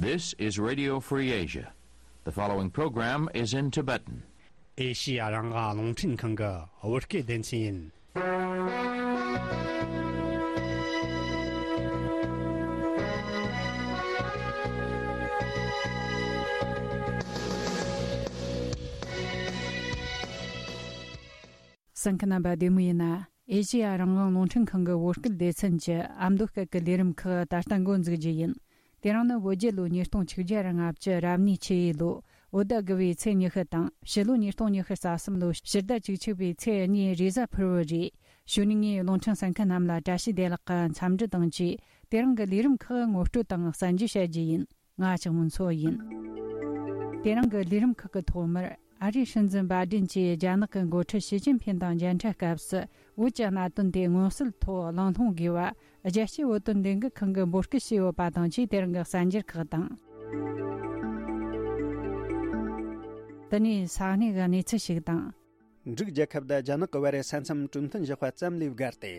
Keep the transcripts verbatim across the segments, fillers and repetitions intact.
This is Radio Free Asia. The following program is in Tibetan. ཨེ་ཤི་ཡ་རང་དབང་རླུང་འཕྲིན་ཁང་གི་བོད་སྐད་སྡེ་ཚན་ཡིན། གསན་མཁན་རྣམ་པ་བདེ་མོ་ཡིན་ན། ཨེ་ཤི་ཡ་རང་དབང་རླུང་འཕྲིན་ཁང་གི་བོད་སྐད་སྡེ་ཚན་གྱི་ཨ་མདོ་སྐད་ཀྱི་ལས་རིམ་ཁག་ད་ལྟ་འགོ་འཛུགས་རྒྱུ་ཡིན། དེ་རིང་ནི་བོད་རྒྱལ་ལོ་ཉིས་སྟོང་ཆིག་བརྒྱ་ར་ལྔ་བཅུ་རབ་གནས་ཆུ་ཡོས་ལོ་བོད་ཟླ་དགུ་བའི་ཚེས་ཉི་ཤུ་དང་ཕྱི་ལོ་ཉིས་སྟོང་ཉི་ཤུ་རྩ་གསུམ་ལོ་ཕྱི་ཟླ་བཅུ་གཅིག་པའི་ཚེས་གཉིས་རེས་གཟའ་ཕུར་བུ་རེད། གཞུག་ནས་ངས་རླུང་འཕྲིན་གསན་མཁན་རྣམས་ལ་བཀྲ་ཤིས་བདེ་ལེགས་ཀྱི་འཚམས་འདྲི་དང་བཅས། དེ་རིང་གི་ལས་རིམ་ཁག་ངོ་སྤྲོད་དང་གསན་རྒྱུ་བྱ་རྒྱུ་ཡིན། ང་ལྕགས་མོ་མཚོ་ཡིན། དེ་རིང་གི་ལས་རིམ་ཁག་གི་ཐོག་མར། ཨ་རིའི་སྲིད་འཛིན་བྷའི་ཌེན་གྱིས་རྒྱ་ནག་གི་འགོ་ཁྲིད་ཞི་ཅིན་ཕིན་དང་མཇལ་འཕྲད་སྐབས་སུ། བོད་ཀྱི་གནད་དོན་དེ་མངོན་གསལ་ཐོག་གླེང་སློང་དགོས་པ། རྒྱལ་སྤྱིའི་བོད་དོན་ལས་འགུལ་ཁང་གིས་འབོད་སྐུལ་བྱས་ཡོད་པ་དང་བཅས། དེ་རིང་གི་གསར་འགྱུར་ཁག་དང་། དེ་ནས་ས་གནས་ཀྱི་གནས་ཚུལ་ཞིག་དང་། འབྲུག་རྒྱལ་ཁབ་དང་རྒྱ་ནག་གི་བར་ས་མཚམས་གྲོས་མཐུན་བཞག་པ་ཙམ་ལས་བརྒལ་ཏེ།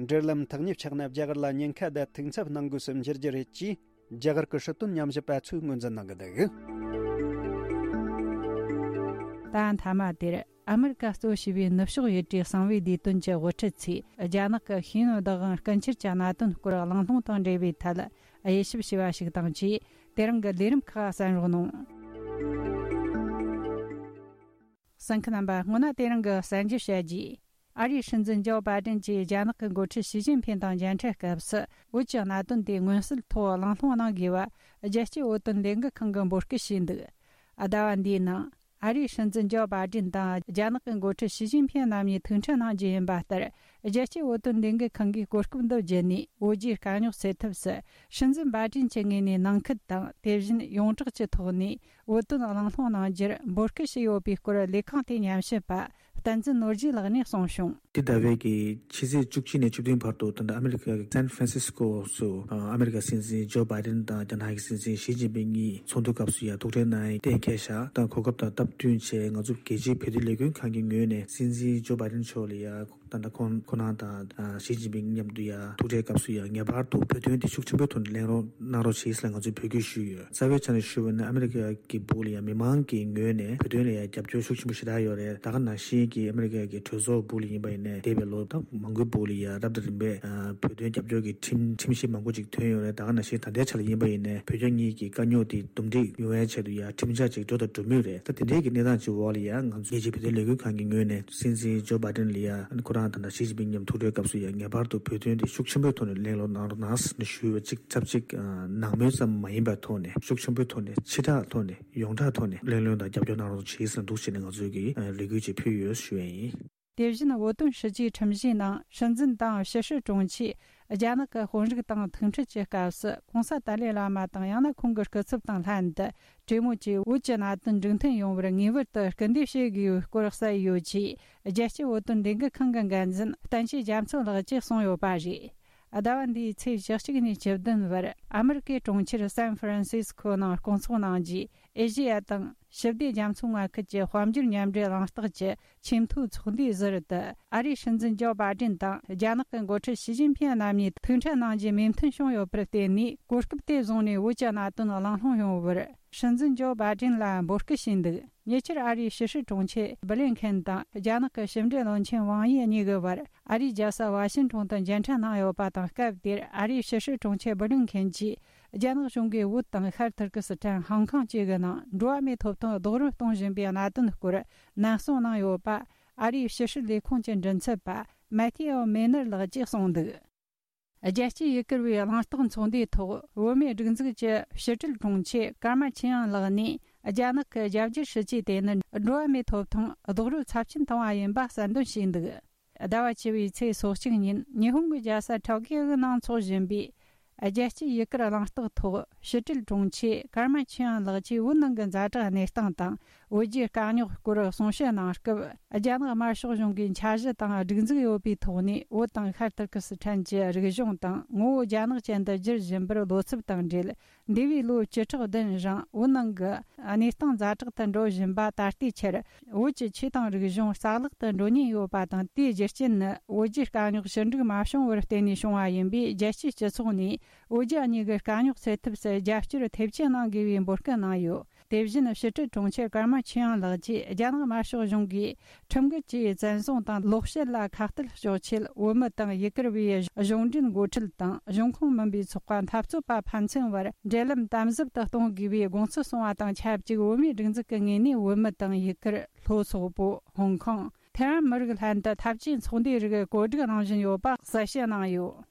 འབྲེལ་ལམ་ཐག་ཉེ་ཆགས་ན་རྒྱ་གར་ལ་ཉེན་ཁ་དང་དུག་འཚབ་གནང་དགོས་སུ་འགྱུར་རྒྱུ་རེད་ཅེས། རྒྱ་གར་གྱི་སྲིད་དོན་ཉམས་ཞིབ་པ་ཚོས་ངོས་འཛིན་གནང་གི་འདུག། ད་མཐའ་མ་དེར་ཨ་མི་རི་ཀ་གཙོ་བྱས་པའི་ནུབ་ཕྱོགས་ཡུལ་གྲུའི་གསང་བའི་བདེ་དོན་གྱི་དབུ་ཁྲིད་ཚོས་རྒྱ་ནག་གི་ཤེས་ཡོན་བདག་དབང་རྐུ་འཁྱེར་གྱི་གནད་དོན་སྐོར་གླེང་སློང་དང་འབྲེལ་བའི་ཐད་དབྱེ་ཞིབ་བྱས་པ་ཞིག་དང་བཅས། དེ་རིང་གི་ལས་རིམ་ཁག་གསན་རོགས་གནང་། གསན་མཁན་རྣམ་པ། སྔོན་ན་དེ་རིང་གི་གསར་འགྱུར་བཤད་རྒྱུ། ཨ་རིའི་སྲིད་འཛིན་ཇོ་བྷའི་ཌེན་གྱིས་རྒྱ་ནག་གི་འགོ་ཁྲིད་ཞི་ཅིན་ཕིན་དང་མཇལ་འཕྲད་སྐབས་སུ། བོད་ཀྱི་གནད་དོན་དེ་མངོན་གསལ་ཐོག་གླེང་སློང་གནང་དགོས་པ། རྒྱལ་སྤྱིའི་བོད་དོན་ལས་འགུལ་ཁང་གིས་འབོད་སྐུལ་བྱས་འདུག། ཟླ་བ་འདིའི་ནང་། ཨ་རིའི་སྲིད་འཛིན་ཇོ་བྷའི་ཌེན་དང་རྒྱ་ནག་གི་འགོ་ཁྲིད་ཞི་ཅིན་ཕིན་རྣམ་གཉིས་ཐུག་འཕྲད་གནང་རྒྱུ་ཡིན་པ་ལྟར། རྒྱལ་སྤྱིའི་བོད་དོན་ལས་འགུལ་ཁང་གིས་གོ་སྐབས་འདི་བརྒྱུད་ནས། བོད་རྒྱའི་དཀའ་རྙོག་སེལ་ཐབས་སུ། སྲིད་འཛིན་བྷའི་ཌེན་གྱི་ངོས་ནས་ནང་ཁུལ་དང་། དེ་བཞིན་ཡོངས་གྲགས་ཀྱི་ཐོག་ནས། བོད་དོན་གླེང་སློང་གནང་རྒྱུར་འབོད་སྐུལ་བྱས་ཡོད་པའི་སྐོར། ལས་ཁང་དེའི་ཉམས་ཞིབ་པ་བསྟན་འཛིན་ནོར་རྒྱས་ལགས་ནས་གསུངས་བྱུང་། འདི་ཟླ་བའི་གི་ཕྱི་ཚེས་བཅུ་གཅིག་ནས་བཅུ་བདུན་བར་དུ། ད་ལྟ་ཨ་མི་རི་ཀ་གི་སན་ཧྥ་རན་སིས་ཀོ་སུ། ཨ་མི་རི་ཀ་སྲིད་འཛིན་ཇོ་བྷའི་ཌེན་དང་རྒྱ་ནག་གི་སྲིད་འཛིན་ཞི་ཅིན་ཕིང་གཉིས་ཚོགས་འདུ་སྐབས་སུ་ཡང་ཐུག་འཕྲད་གནང་ཡས་གཏན་འཁེལ་བཞག་དང་། གོ་སྐབས་དང་སྟབས་བསྟུན་བྱས། ང་ཚོ་རྒྱལ་སྤྱིའི་བོད་དོན་ལས་འགུལ་ཁང་གི་ངོས་ནས་སྲིད་འཛིན་ཇོ་བྷའི་ཌེན་མཆོག་ལ་ཡང་། ད་ལྟ་ཁོང་ཁོང་རང་དང་ཞི་ཅིན་ཕིང་མཉམ་དུ་ཡང་ཐུག་འཕྲད་སྐབས་སུ་ཡང་ངེས་པར་དུ་བོད་དོན་དེ་ཤུགས་ཆེན་པོའི་ཐོག་ནས་གླེང་རོགས་གནང་རོགས་བྱེད་ཟེར་ང་ཚོས་འབོད་སྐུལ་ཞུས་ཡོད། རྩ་བའི་ཆ་ནས་ཞུས་པ་ན། ཨ་མི་རི་ཀ་གི་སྦུག་ལ་ཡང་མི་མང་གི་ངོས་ནས་བོད་དོན་ལ་ཡང་རྒྱབ་སྐྱོར་ཤུགས་ཆེན་པོ་ཞེ་དྲག་ཡོད་རེད། ད་ག་ནང་བཞིན་གྱི་ཨ་མི་རི་ཀ་གི་གྲོས་ཚོགས་སྦུག་ལ་ཡིན་པ་ཡིན་ནའི། འདས་པའི་ལོ་ད་མང་པོའི་སྦུག་ལ་ཡང་རབ་དང་རིམ་པས་བོད་དོན་རྒྱབ་སྐྱོར་གྱི་ཁྲིམས་ཁྲིམས་གཞི་མང་པོ་ཅིག་ཐོན་ཡོད་རེད། ད་ག་ནང་བཞིན་ད་ལྟའི་ཆ་ལ་ཡིན་པ་ཡིན་ནའི། བོད་རྒྱ་གཉིས་ཀྱི་དཀའ་རྙོག་དེ་འདུམ་འགྲིག་ཡོང་ཡའི་ཆེད་དུ་ཡང་ཁྲིམས་འཆར་ཅིག་འགྲོ་དང་འགྲོ་མུས་རེད། ད་དེ་འདྲའི་གི་གནས་སྟངས་ཅིག་འོག་ལ་ཡང་ང་ཚོ་རྒྱལ་སྤྱིའི་བོད་དོན་ལས་འགུལ་ཁང་གི་ངོས་ནས་སྲིད་འཛིན་ཇོ་བྷའི་ཌེན་ལ་ཡང་ཁོ་རང་དང་ཞི་ཅིན་ཕིང་མཉམ་ཐུག་འཕྲད་སྐབས་སུ་ཡང་ངེས་པར་དུ་བོད་དོན་དེ་ཤུགས་ཆེན་པོའི་ཐོག་ནས་གླེང་རོགས་གནང་རོགས་གནང་ཟེར་ནས་ཞུས་པ་ཅིག་ཚབ་ཅིག་ནང་མོལ་ཙམ་མ་ཡིན་པའི་ཐོག་ནས། ཤུགས་ཆེན་པོའི་ཐོག་ནས། ཕྱི་དྲག་ཐོག་ནས། ཡོངས་གྲགས་ཐོག་ནས་གླེང་སློང་དང་རྒྱབ་སྐྱོར་གནང་རོགས་བྱེད་ཟེར་འདུག་བྱས་ནས་ང་ཚོས་ཀྱི་ལས་འགུལ་ཅིག་ཕུལ་ཡོད་ཞུ་ཡ་ཡིན། དེ་བཞིན་བོད་དོན་ཞི་བཅོས་ཁྲིམས་གཞིའི་ནང་སྲིད་འཛིན་དང་ཕྱི་སྲིད་དྲུང་ཆེས་རྒྱ་ནག་གི་དཔོན་རིགས་དང་ཐུག་འཕྲད་ཀྱི་སྐབས་སུ། གོང་ས་ཏཱ་ལའི་བླ་མ་དང་ཡང་ན་ཁོང་གི་སྐུ་ཚབ་དང་ལྷན་དུ། གྲོས་མོལ་གྱིས་བོད་ཀྱི་གནད་དོན་འགྲིག་མཐུན་ཡོང་བར་ངེས་པར་དུ་སྐུལ་འདེད་བྱེད་དགོས་སྐོར་གསལ་ཡོད་ཅེས། རྒྱལ་སྤྱིའི་བོད་དོན་ལས་འགུལ་ཁང་གི་འགན་འཛིན་བསྟན་ཆོས་རྒྱ་མཚོ་ལགས་ཀྱིས་གསུངས་ཡོད་པ་རེད། ཟླ་བ་འདིའི་ཚེས་བཅུ་གཅིག་ནས་བཅུ་བདུན་བར་ཨ་མི་རི་ཀའི་གྲོང་ཁྱེར་སན་ཧྥ་རན་སིས་ཀོ་ནང་སྐོང་ཚོགས་གནང་རྒྱུའི་ཨེ་ཤེ་ཡ་དང་ཞི་བདེ་རྒྱ་མཚོ་མངའ་ཁུལ་གྱི་དཔལ་འབྱོར་མཉམ་འབྲེལ་གླེང་སྟེགས་ཀྱི་ཆེས་མཐོའི་ཚོགས་འདུའི་ཟུར་དུ། ཨ་རིའི་སྲིད་འཛིན་ཇོ་བྷའི་ཌེན་དང་རྒྱ་ནག་གི་འགོ་ཁྲིད་ཞི་ཅིན་ཕིན་རྣམ་གཉིས་ཐུག་འཕྲད་གནང་རྒྱུའི་མོས་མཐུན་བྱུང་ཡོད་པར་བརྟེན་ནས། གོ་སྐབས་དེ་བཟུང་ནས་བོད་ཀྱི་གནད་དོན་གླེང་སློང་ཡོང་བར་སྲིད་འཛིན་ཇོ་བྷའི་ཌེན་ལ་འབོད་སྐུལ་བྱས་འདུག། ཉེ་ཆར་ཨ་རིའི་ཕྱི་སྲིད་དྲུང་ཆེ་སྦི་ལིན་ཁེན་དང་རྒྱ་ནག་གི་ཕྱི་འབྲེལ་བློན་ཆེན་ཝང་ཡི་གཉིས་ཀྱི་བར་ཨ་རིའི་རྒྱལ་ས་ཝ་ཤིན་ཊོན་དུ་མཇལ་འཕྲད་གནང་ཡོད་པ་དང་། སྐབས་དེར་ཨ་རིའི་ཕྱི་སྲིད་དྲུང་ཆེ་སྦི་ལིན་ཁེན་གྱིས་རྒྱ་ནག་གཞུང་གིས་བོད་དང་ཤར་ཐུར་ཀི་སི་ཐན། ཧང་ཀོང་བཅས་ཀྱི་ནང་འགྲོ་བ་མིའི་ཐོབ་ཐང་རྡོག་རོལ་གཏོང་བཞིན་པའི་གནད་དོན་སྐོར་ནན་གསུང་གནང་ཡོད་པ། ཨ་རིའི་ཕྱི་སྲིད་ལས་ཁུངས་ཀྱི་མགྲིན་ཚབ་པ་མེ་ཐི་ཨོ་མེ་ནར་ལགས་ཀྱིས་གསུངས་འདུག། རྒྱལ་སྤྱིའི་ཡུལ་གུར་བའི་གླེང་སྟེགས་ཚོགས་འདུའི་ཐོག་བོད་མིའི་སྒྲིག་འཛུགས་ཀྱི་ཕྱི་དྲིལ་དྲུང་ཆེ་ཀརྨ་ཆོས་དབྱངས་ལགས་ནས། རྒྱ་ནག་གི་རྒྱ་སྒྱུར་སྲིད་ཇུས་དེ་ནི་འགྲོ་བ་མིའི་ཐོབ་ཐང་རྡོག་རོལ་ཚབས་ཆེན་བཏང་བ་ཡིན་པ་གསལ་འདོན་བྱས་འདུག། ཟླ་བ་བཅུ་བའི་ཚེས་སོ་གཅིག་ཉིན་ཉི་ཧོང་གི་རྒྱལ་ས་ཊོ་ཀིའོ་གི་ནང་འཚོགས་བཞིན་པའི་རྒྱལ་སྤྱིའི་ཡུལ་གུར་གླེང་སྟེགས་ཐོག་ཕྱི་དྲིལ་དྲུང་ཆེ་ཀརྨ་ཆོས་དབྱངས་ལགས་ཀྱིས་བོད་ནང་གི་ཛ་དྲག་གནས་སྟངས་དང་ བོད་རྒྱའི་དཀའ་རྙོག་སྐོར་གསུང་བཤད་གནང་སྐབས། རྒྱ་ནག་དམར་ཤོག་གཞུང་གིས་འཆར་གཞི་དང་སྒྲིག་འཛུགས་ཡོད་པའི་ཐོག་ནས། བོད་དང་ཤར་ཏུར་ཀི་སི་ཐན་གྱི་རིག་གཞུང་དང་ངོ་བོ་རྒྱ་ནག་ཅན་དུ་བསྒྱུར་བཞིན་པར་བློ་འཚབ་དང་འབྲེལ། འདས་པའི་ལོ་བཅུ་ཕྲག་བདུན་རིང་བོད་ནང་གི་གནས་སྟངས་ཛ་དྲག་ཏུ་འགྲོ་བཞིན་པ་ད་ལྟའི་ཆར། བོད་ཀྱི་ཆོས་དང་རིག་གཞུང་རྩ་བརླག་ཏུ་འགྲོ་ཉེན་ཡོད་པ་དང་། དེའི་རྒྱུ་རྐྱེན་ནི་བོད་རྒྱའི་དཀའ་རྙོག་ཞི་འགྲིག་མ་བྱུང་བར་བརྟེན་ནས་བྱུང་བ་ཡིན་པས། རྒྱལ་སྤྱིའི་སྤྱི་ཚོགས་ནས་བོད་རྒྱ་གཉིས་ཀྱི་དཀའ་རྙོག་སེལ་ཐབས་སུ་རྒྱབ་སྐྱོར་ཐེབས་ཆེན་གནང་དགོས་པའི་འབོད་སྐུལ་གནང་ཡོད། དེ་བཞིན་ཕྱི་དྲིལ་དྲུང་ཆེ་ཀརྨ་ཆོས་དབྱངས་ལགས་ཀྱིས། རྒྱ་ནག་དམར་ཤོག་གཞུང་གིས་ཁྲིམས་འགལ་གྱིས་བཙན་བཟུང་དང་ལོག་བཤད་ལ་ཁ་གཏད་གཅོག་ཆེད། བོད་མི་དང་ཡུ་གུར་བའི་གཞུང་འབྲེལ་འགོ་ཁྲིད་དང་། གཞུང་ཁོངས་མིན་པའི་ཚོགས་པ་འཐབ་རྩོད་པ་ཕན་ཚུན་བར་འབྲེལ་ལམ་དམ་ཟབ་ཏུ་གཏོང་དགོས་པའི་དགོངས་ཚུལ་གསུངས་པ་དང་ཆབས་ཅིག་བོད་མིའི་སྒྲིག་འཛུགས་ཀྱི་ངོས་ནས། བོད་མི་དང་ཡུ་གུར། ལྷོ་སོག་པོ། ཧོང་ཀོང་། ཐེ་ཝན་མི་རིགས་ལྷན་དུ་འཐབ་ཇུས་ཚོགས་འདུའི་རིགས་གོ་སྒྲིག་གནང་བཞིན་ཡོད་པ་གསལ་བཤད་གནང་ཡོད།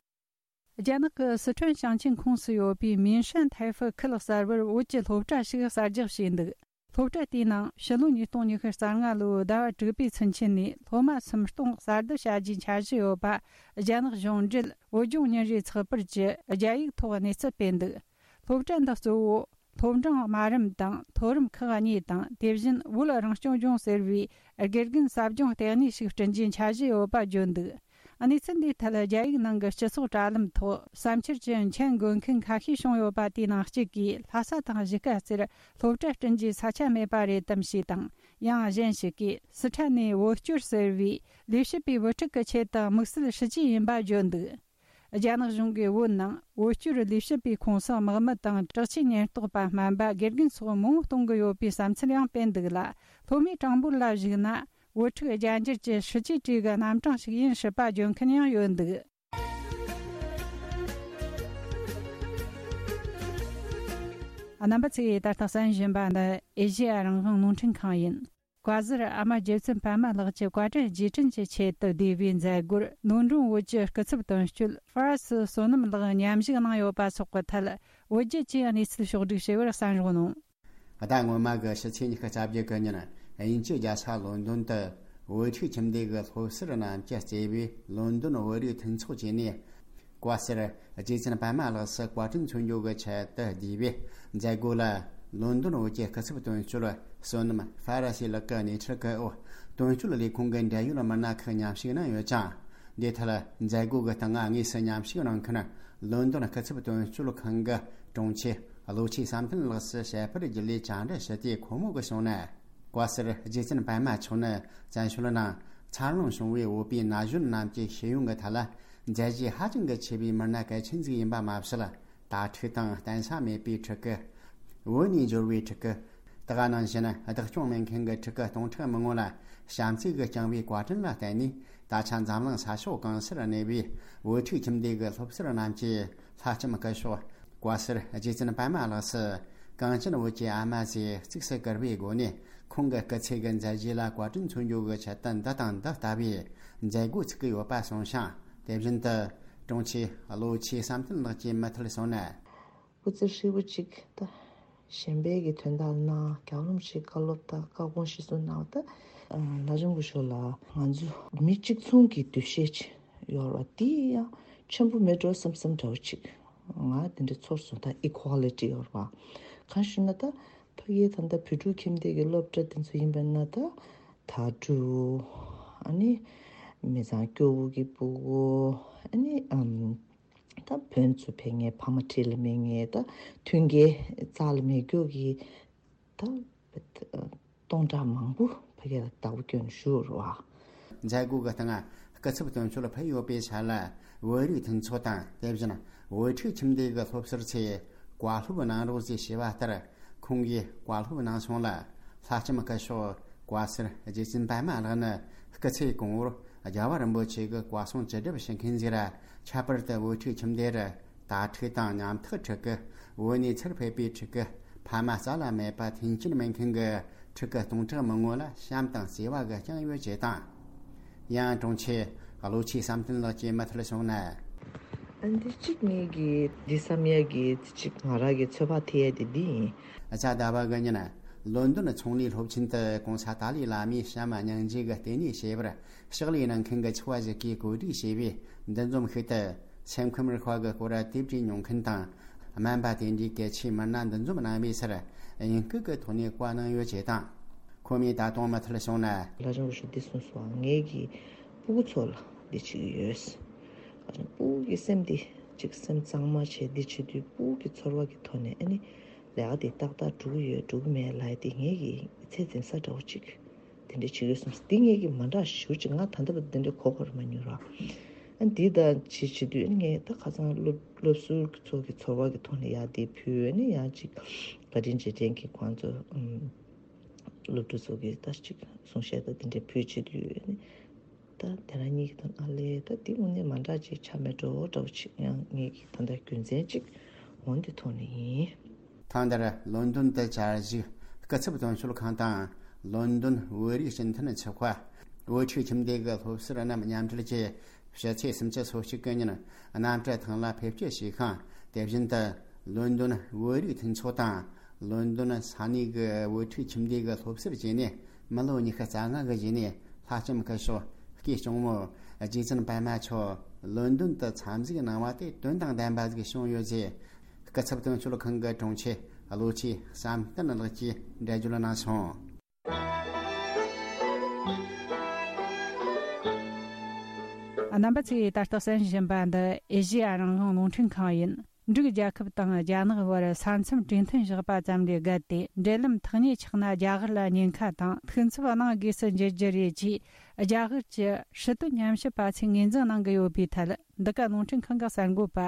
རྒྱ་ནག་གི་སི་ཁྲོན་ཞིང་ཆེན་ཁོངས་སུ་ཡོད་པའི་མིན་ཧྲན་ཐའེ་ཧྥུ་ཁུལ་གསར་པར་བོད་ཀྱི་སློབ་གྲྭ་ཞིག་གསར་རྒྱག་བྱས་འདུག་སློབ་གྲྭ་དེའི་ནང་ཕྱི་ལོ་ཉིས་སྟོང་ཉི་ཤུ་རྩ་ལྔ་ལོའི་ཟླ་བ་དྲུག་པའི་ཚུན་ཆད་ནས་སློབ་མ་སུམ་སྟོང་གསར་དུ་བྱ་རྒྱུའི་འཆར་གཞི་ཡོད་པ། རྒྱ་ནག་གཞུང་འབྲེལ་བོད་ལྗོངས་ཉིན་རེའི་ཚགས་པར་གྱིས་རྒྱ་ཡིག་ཐོག་གནས་ཚུལ་སྤེལ་འདུག་སློབ་གྲྭ་འདི་གཙོ་བོ་སློབ་འབྲིང་དམའ་རིམ་དང་མཐོ་རིམ་ཁག་གཉིས་དང་། དེ་བཞིན་བོད་རང་སྐྱོང་ལྗོངས་ཟེར་བའི་དགེ་རྒན་ཟབ་སྦྱོང་ལྟེ་གནས་ཤིག་བསྐྲུན་རྒྱུའི་འཆར་གཞི་ཡོད་པ་བརྗོད་འདུག་གནས་ཚུལ་འདིའི་ཐད། རྒྱ་ཡིག་ནང་གི་སྤྱི་ཚོགས་དྲ་ལམ་ཐོག་བསམ་འཆར་གྱི་མཆན་འགོད་མཁན་ཁ་ཤས་བྱུང་ཡོད་པ། དེའི་ནང་གཅིག་གིས། ལྷ་ས་དང་གཞིས་ཀ་རྩེར་སློབ་གྲྭ་བསྐྲུན་རྒྱུའི་ས་ཆ་མེད་པ་རེད་དམ་ཞེས་དང་། ཡང་གཞན་ཞིག་གིས། སི་ཁྲོན་ནས་བོད་སྐྱོར་ཟེར་བའི་ལས་བྱེད་པའི་བུ་ཕྲུག་གི་ཆེད་དུ་དམིགས་བསལ་སྲིད་ཇུས་ཡིན་པ་བརྗོད་འདུག་རྒྱ་ནག་གཞུང་གིས་བོད་ནང་བོད་སྐྱོར་ལས་བྱེད་པའི་ཁོངས་སུ་དམག་མི་དང་དྲག་ཆས་ཉེན་རྟོག་པ་སྨན་པ། དགེ་རྒན་སོགས་མང་པོ་གཏོང་གི་ཡོད་པའི་བསམ་ཚུལ་ཡང་སྤེལ་འདུག་ལ། སློབ་མའི་གྲངས་འབོར་ལ་གཞིགས་ན། བོད་ཕྲུག་རྒྱ་འགྱུར་གྱི་སྲིད་ཇུས་བྲིས་ཀྱི་རྣམ་གྲངས་ཤིག་ཡིན་སྲིད་པ་བརྗོད་མཁན་ཡང་ཡོད་འདུག་རྣམ་པ་ཚོས་ད་ལྟ་གསན་བཞིན་པ་འདི་ཨེ་ཤེ་ཡ་རང་དབང་རླུང་འཕྲིན་ཁང་ཡིན། བཀའ་ཟུར་ཨ་མ་རྗེ་བཙུན་པད་མ་ལགས་ཀྱི་བཀའ་དྲིན་རྗེས་དྲན་གྱི་ཆེད་དུ་བསྡུས་པའི་མཛད་སྒོར། ལོན་ཌོན་བོད་ཀྱི་སྐུ་ཚབ་དོན་གཅོད་ཧྥ་ར་སི་བསོད་ནམས་ལགས་མཉམ་ཞུགས་གནང་ཡོད་པ་སོགས་ཀྱི་ཐད། བོད་རྒྱ་བཅས་གནས་ཚུལ་ཕྱོགས་བསྒྲིགས་བྱས་པར་གསན་རོགས་གནང་། ཟླ་སྔོན་མ་གི་ཕྱི་ཚེས་ཉི་ཤུ་རྩ་བརྒྱད་གི་ཉིན། དབྱིན་ཇི་རྒྱལ་ས་ལོན་ཌོན་དུ་བོད་ཕྲུག་ཁྱིམ་སྡེ་གི་སློབ་ཟུར་རྣམས་ཀྱིས་གཙོས་པའི་ལོན་ཌོན་བོད་རིགས་མཐུན་ཚོགས་བཅས་ནས། བཀའ་ཟུར་རྗེ་བཙུན་པད་མ་ལགས་སུ་བཀའ་དྲིན་མཚོན་རྒྱུ་གི་ཆེད་དུ་བསྡུས་པའི་མཛད་སྒོ་ལ། ལོན་ཌོན་བོད་ཀྱི་སྐུ་ཚབ་དོན་གཅོད་བསོད་ནམས་ཧྥ་ར་སི་ལགས་ཀྱི་སྣེ་ཁྲིད་སྐུ་འོག་དོན་གཅོད་ལས་ཁུངས་ཀྱི་འབྲེལ་ཡོད་མི་སྣ་ཁག་མཉམ་ཞུགས་གནང་ཡོད་ཅིང་། འདིའི་ཐད་མཛད་སྒོ་གི་སྟེང་དངོས་སུ་མཉམ་ཞུགས་གནང་མཁན་ལོན་ཌོན་སྐུ་ཚབ་དོན་གཅོད་ཁང་གི་དྲུང་ཆེ་བློ་ཆོས་བསམ་གཏན་ལགས་སུ་བཤད་པར་རྒྱུན་ལས་བཅར་འདྲི་ཞུས་ཏེ། ཁོ་མོ་གིས་གསུངས་ན། བཀའ་ཟུར་རྗེ་བཙུན་པད་མ་མཆོག་ནི་བཙན་བྱོལ་ནང་འཚར་ལོངས་བྱུང་བའི་བོད་པའི་ན་གཞོན་རྣམས་ཀྱི་ཤེས་ཡོན་གྱི་ཐད་ལ་མཛད་རྗེས་ཧ་ཅང་གི་ཆེ་བའི་མི་སྣ་གལ་ཆེན་ཞིག་ཡིན་པ་མ་ཟད། དྭ་ཕྲུག་དང་བརྟེན་ས་མེད་པའི་ཕྲུ་གུ། བོད་ནས་འབྱོར་བའི་ཕྲུ་གུ། དེ་ག་ནང་བཞིན་བདག་སྐྱོང་མེད་མཁན་གྱི་ཕྲུ་གུ་སྟོང་ཕྲག་མང་པོ་ལ་བྱམས་བརྩེ་གིས་བསྐྱངས་པའི་བཀའ་དྲིན་ལ་བརྟེན་ནས། ད་ཆ་འཛམ་གླིང་ས་ཕྱོགས་གང་སར་གནས་པའི་བོད་ཕྲུག་ཁྱིམ་སྡེ་གི་སློབ་ཟུར་རྣམས་ཀྱིས་ལྷ་ལྕམ་སྐུ་ཞབས་བཀའ་ཟུར་རྗེ་བཙུན་པད་མ་ལགས་སུ། གངས་ཅན་བོད་ཀྱི་ཨ་མ་ཞེས་གཙིགས་སུ་བཀུར་བའི་སྒོ་ནས། ཁོང་གི་སྐུ་ཚེ་གི་མཛད་རྗེས་ལ་བཀའ་དྲིན་མཚོན་རྒྱུ་གི་ཆེད་དུ་འདི་དང་འདི་ལྟ་བུའི་མཛད་སྒོ་བཙུགས་ཀྱི་ཡོད་པ་གསུངས་ཤིང་། དེ་བཞིན་དུ་དྲུང་ཆེ་བློ་ཆོས་བསམ་གཏན་ལགས་ཀྱིས་མུ་མཐུད་གསུངས་ན། སྐུ་ཚེ་ཧྲིལ་པོ་གཅིག་ད་གཞན་པའི་གི་དོན་དག་ལ་གནང་། རྒྱལ་བ་རིན་པོ་ཆེའི་བཀའ་སློབ་དང་བཀའ་དགོངས་གཞིར་བཟུང་གནང་བ་ད། ལྷ་ལྕམ་སྐུ་ཞབས་ལ་ང་ཚོ་མི་གཅིག་མཚུངས་ཀྱི་འདུ་ཤེས་ཅིག་ཡོད་རེད་བ། དེ་ཡང་ཆེན་པོ་མེད་འགྲོ་བསམ་བསམ་འདྲ་བོ་ཅིག་ང་དེ་འདྲ་ཚོར་སོང་། ད་ཨི་ཁོ་ལི་ཊི་ཡོད་རེད་བ། གང་ཞུ་ན་ད་ཕ་གིའི་ད་ལྟ་བོད་ཕྲུག་ཁྱིམ་སྡེ་གི་སློབ་གྲྭ་དེ་ཚོ་ཡིན་པ་ན། ད་དྭ་ཕྲུག་ཨ་ནི་མི་ཚང་སྐྱོ་བོ་གི་སྤུ་གུ། ཨ་ནི་ཨམ། ད་བོན་ཚོ་ཕེབས་མཁན། ཕ་མ་འཁྲིས་ལ་མེད་མཁན། ད་མཐུན་རྐྱེན་རྩ་ལ་མེད་རྒྱུ་གི་ད་སྟོང་ཕྲག་མང་པོ་ཕ་གི་ལ་བདག་པོ་བསྐྱོན་བཞུགས་རེད་བ། མཛད་སྒོ་གི་སྟེང་སྐུ་ཚབ་དོན་གཅོད་ཕེབས་ཡོད་པའི་ཆ་ལ། བོད་རིགས་མཐུན་ཚོགས་དང་། དེ་བཞིན་བོད་ཕྲུག་ཁྱིམ་སྡེ་གི་སློབ་ཟུར་ཚོས་བཀའ་སློབ་གནང་རོགས་ཞེས་ཞུས་པ་ལྟར། ཁོང་གིས་བཀའ་སློབ་གནང་སོང་ལ། ལྷ་ལྕམ་སྐུ་ཞབས་བཀའ་ཟུར་རྗེ་བཙུན་པད་མ་ལགས་ནི་སྐུ་ཚེ་གང་བོར་རྒྱལ་བ་རིན་པོ་ཆེ་གི་བཀའ་གསུང་ཅི་སྒྲུབ་ཞུ་མཁན་ཞིག་ར། ཁྱད་པར་དུ་བོད་ཕྲུག་ཁྱིམ་སྡེ་རུ་དྭ་ཕྲུག་དང་ཉམ་ཐག་ཕྲུ་གུ། བོད་ནས་ཚུར་ཕེབས་པའི་ཕྲུ་གུ། ཕ་མ་རྩ་ལ་མེད་པ་མཐུན་རྐྱེན་མེད་མཁན་གྱི་ཕྲུ་གུ་སྟོང་ཕྲག་མང་པོ་ལ་བྱམས་དང་བརྩེ་བ་གིས་བསྐྱངས་ཡོད་ཅེས་དང་། ཡང་དྲུང་ཆེ་བློ་ཆོས་བསམ་གཏན་ལགས་ཀྱིས་མུ་མཐུད་གསུངས་ན། ཨ་འདི་གཅིག་ངེད་ཀྱིས་འདི་བསམ་ཡ་གི་གཅིག་ང་རང་གི་ཚོད་དཔག་ཐེབས་ཡ་དེ་འདི་ཡིན། གཟའ་ཟླ་བ་གི་ཉིན་ལོན་ཌོན་ཚོང་ལས་སློབ་ཆེན་དུ་གོང་ས་ཏཱ་ལའི་བླ་མའི་བྱམས་སྙིང་རྗེ་གི་ལྟེ་གནས་ཞེས་པར་ཕྱག་ལས་གནང་མཁན་གྱི་ཆེ་བ་ཞིག་གིས་གོ་སྒྲིག་བྱས་པའི་འདུ་འཛོམས་ཤིག་ཏུ། སེམས་ཁམས་རིག་པ་གི་སྐོར་དེབ་བྲིས་མྱོང་མཁན་དང་། སྨན་པ་དེ་འདྲའི་གལ་ཆེའི་མི་སྣ་འདུ་འཛོམས་གནང་བའི་སར་དབྱིན་སྐད་ཀྱི་ཐོག་ནས་བཀའ་གནང་ཡོད་ཅེས་དང་། ཁོ་མོས་ད་དུང་མུ་མཐུད་བྱུང་ན། ལྷ་ལྕམ་སྐུ་ཞབས་འདི་གསུངས་སོང་། ངེད་ཀྱི་སྤུ་གུ་ཚོ་ལ་འདི་བྱེད་ཀྱི་ཡོད། ལྷ་ལྕམ་སྤུ་གུ་གི་སེམས་འདི་ཅིག་སེམས་གཙང་མ་བྱས་འདི་བྱེད་དུས། སྤུ་གུ་གི་ཚོར་བ་གི་ཐོག་ནས་ཨ་ནི་ལས་ཀ་འདི་ཏག་ཏག་འགྲུབ་ཀྱི་ཡོད་འགྲུབ་ཀྱི་མེད་ལབ་ཡ་འདི་ངེད་ཀྱི་ཚད་འཛིན་ས་འདྲ་བོ་ཅིག་དེ་འདྲ་བྱེད་ཀྱི་ཡོད་གསུངས། འདི་ངེད་ཀྱི་མ་འདྲ་ཞེ་པོ་ཅིག་ང་ད་ལྟ་བར་དུ་འདི་འདྲ་གོ་དགོས་རེད་མ་མྱོང་ར། ཨ་འདི་ད་བྱེད་བྱེད་དུས་ཨ་ནི་ངས་ད་ཁ་སང་སློབ་སློབ་ཟུར་ཚོ་གི་ཚོར་བ་གི་ཐོག་ནས་ཡ་འདི་ཕུལ། ཨ་ནི་ཡང་ཅིག་བཀའ་དྲིན་རྗེས་དྲན་གྱི་ཁོང་ཚོ་ཨམ། སློབ་ཕྲུག་ཚོ་གིས་ད་ཅིག་གསུང་བཤད་དང་དེ་འདྲའི་ཕུལ་བྱེད་དུས་ནི། ད་དེ་རང་ཉིད་ཀྱི་དོན་ཨ་ལས་ད་དེ་དངོས་གནས་མ་འདྲ་ཅིག་ཆགས་མེད་འགྲོ་འདྲ་བོ་ཅིག་ཡང་ངེད་ཀྱི་ད་ལྟ་རྒྱུ་མཚན་ཅིག་འོང་དེ་ཐོག་ནས་ཡིན། ཐེངས་འདིར་ལོན་ཌོན་དུ་བཅར་བཞུགས་སྐུ་ཚབ་དོན་གཅོད་ཁང་དང་། ལོན་ཌོན་བོད་རིགས་སྤྱི་མཐུན་ཚོགས་པ། བོད་ཕྲུག་ཁྱིམ་སྡེ་གི་སློབ་ཟུར་རྣམས་མཉམ་འབྲེལ་གྱིས། ཕྱི་ཚེས་སུམ་ཅུ་སོ་གཅིག་གི་ཉིན་གནམ་གྲུ་ཐང་ལ་ཕེབས་སྐྱེལ་བྱས་ཤིང་། དེ་བཞིན་དུ་ལོན་ཌོན་བོད་རིགས་མཐུན་ཚོགས་དང་། ལོན་ཌོན་ས་གནས་ཀྱི་བོད་ཕྲུག་ཁྱིམ་སྡེ་གི་སློབ་ཟུར་བཅས་ནས། མི་ལོ་ཉི་ཤུ་རྩ་ལྔ་གི་རྗེས་ནས་ལྷ་ལྕམ་སྐུ་ཞབས་སྐུའི་གཅུང་མོ་རྗེ་བཙུན་པདྨ་མཆོག་ལོན་ཌོན་དུ་འཚམས་གཟིགས་གནང་བ་དེ་དོན་དང་ལྡན་པ་ཞིག་བྱུང་ཡོད་ཅེས། སྐུ་ཚབ་དོན་གཅོད་ཁང་གི་དྲུང་ཆེ་བློ་གྲོས་བསམ་གཏན་ལགས་ཀྱིས་འགྲེལ་བརྗོད་གནང་སོང་། རྣམ་པ་ཚོས་ད་ལྟ་གསན་བཞིན་པ་འདི་ཨེ་ཤེ་ཡ་རང་དབང་རླུང་འཕྲིན་ཁང་ཡིན། འབྲུག་རྒྱལ་ཁབ་དང་རྒྱ་ནག་དབར་ས་མཚམས་གྲོས་མཐུན་བཞག་པ་ཙམ་ལས་བརྒལ་ཏེ། འབྲེལ་ལམ་ཐག་ཉེ་ཆགས་ན་རྒྱ་གར་ལ་ཉེན་ཁ་དང་། ཐུགས་འཚབ་གནང་དགོས་སུ་འགྱུར་རྒྱུ་རེད་ཅེས། རྒྱ་གར་གྱི་སྲིད་དོན་ཉམས་ཞིབ་པ་ཚོས་ངོས་འཛིན་གནང་གི་ཡོད་པའི་ཐད། འདི་ག་རླུང་འཕྲིན་ཁང་གི་གསར་འགོད་པ་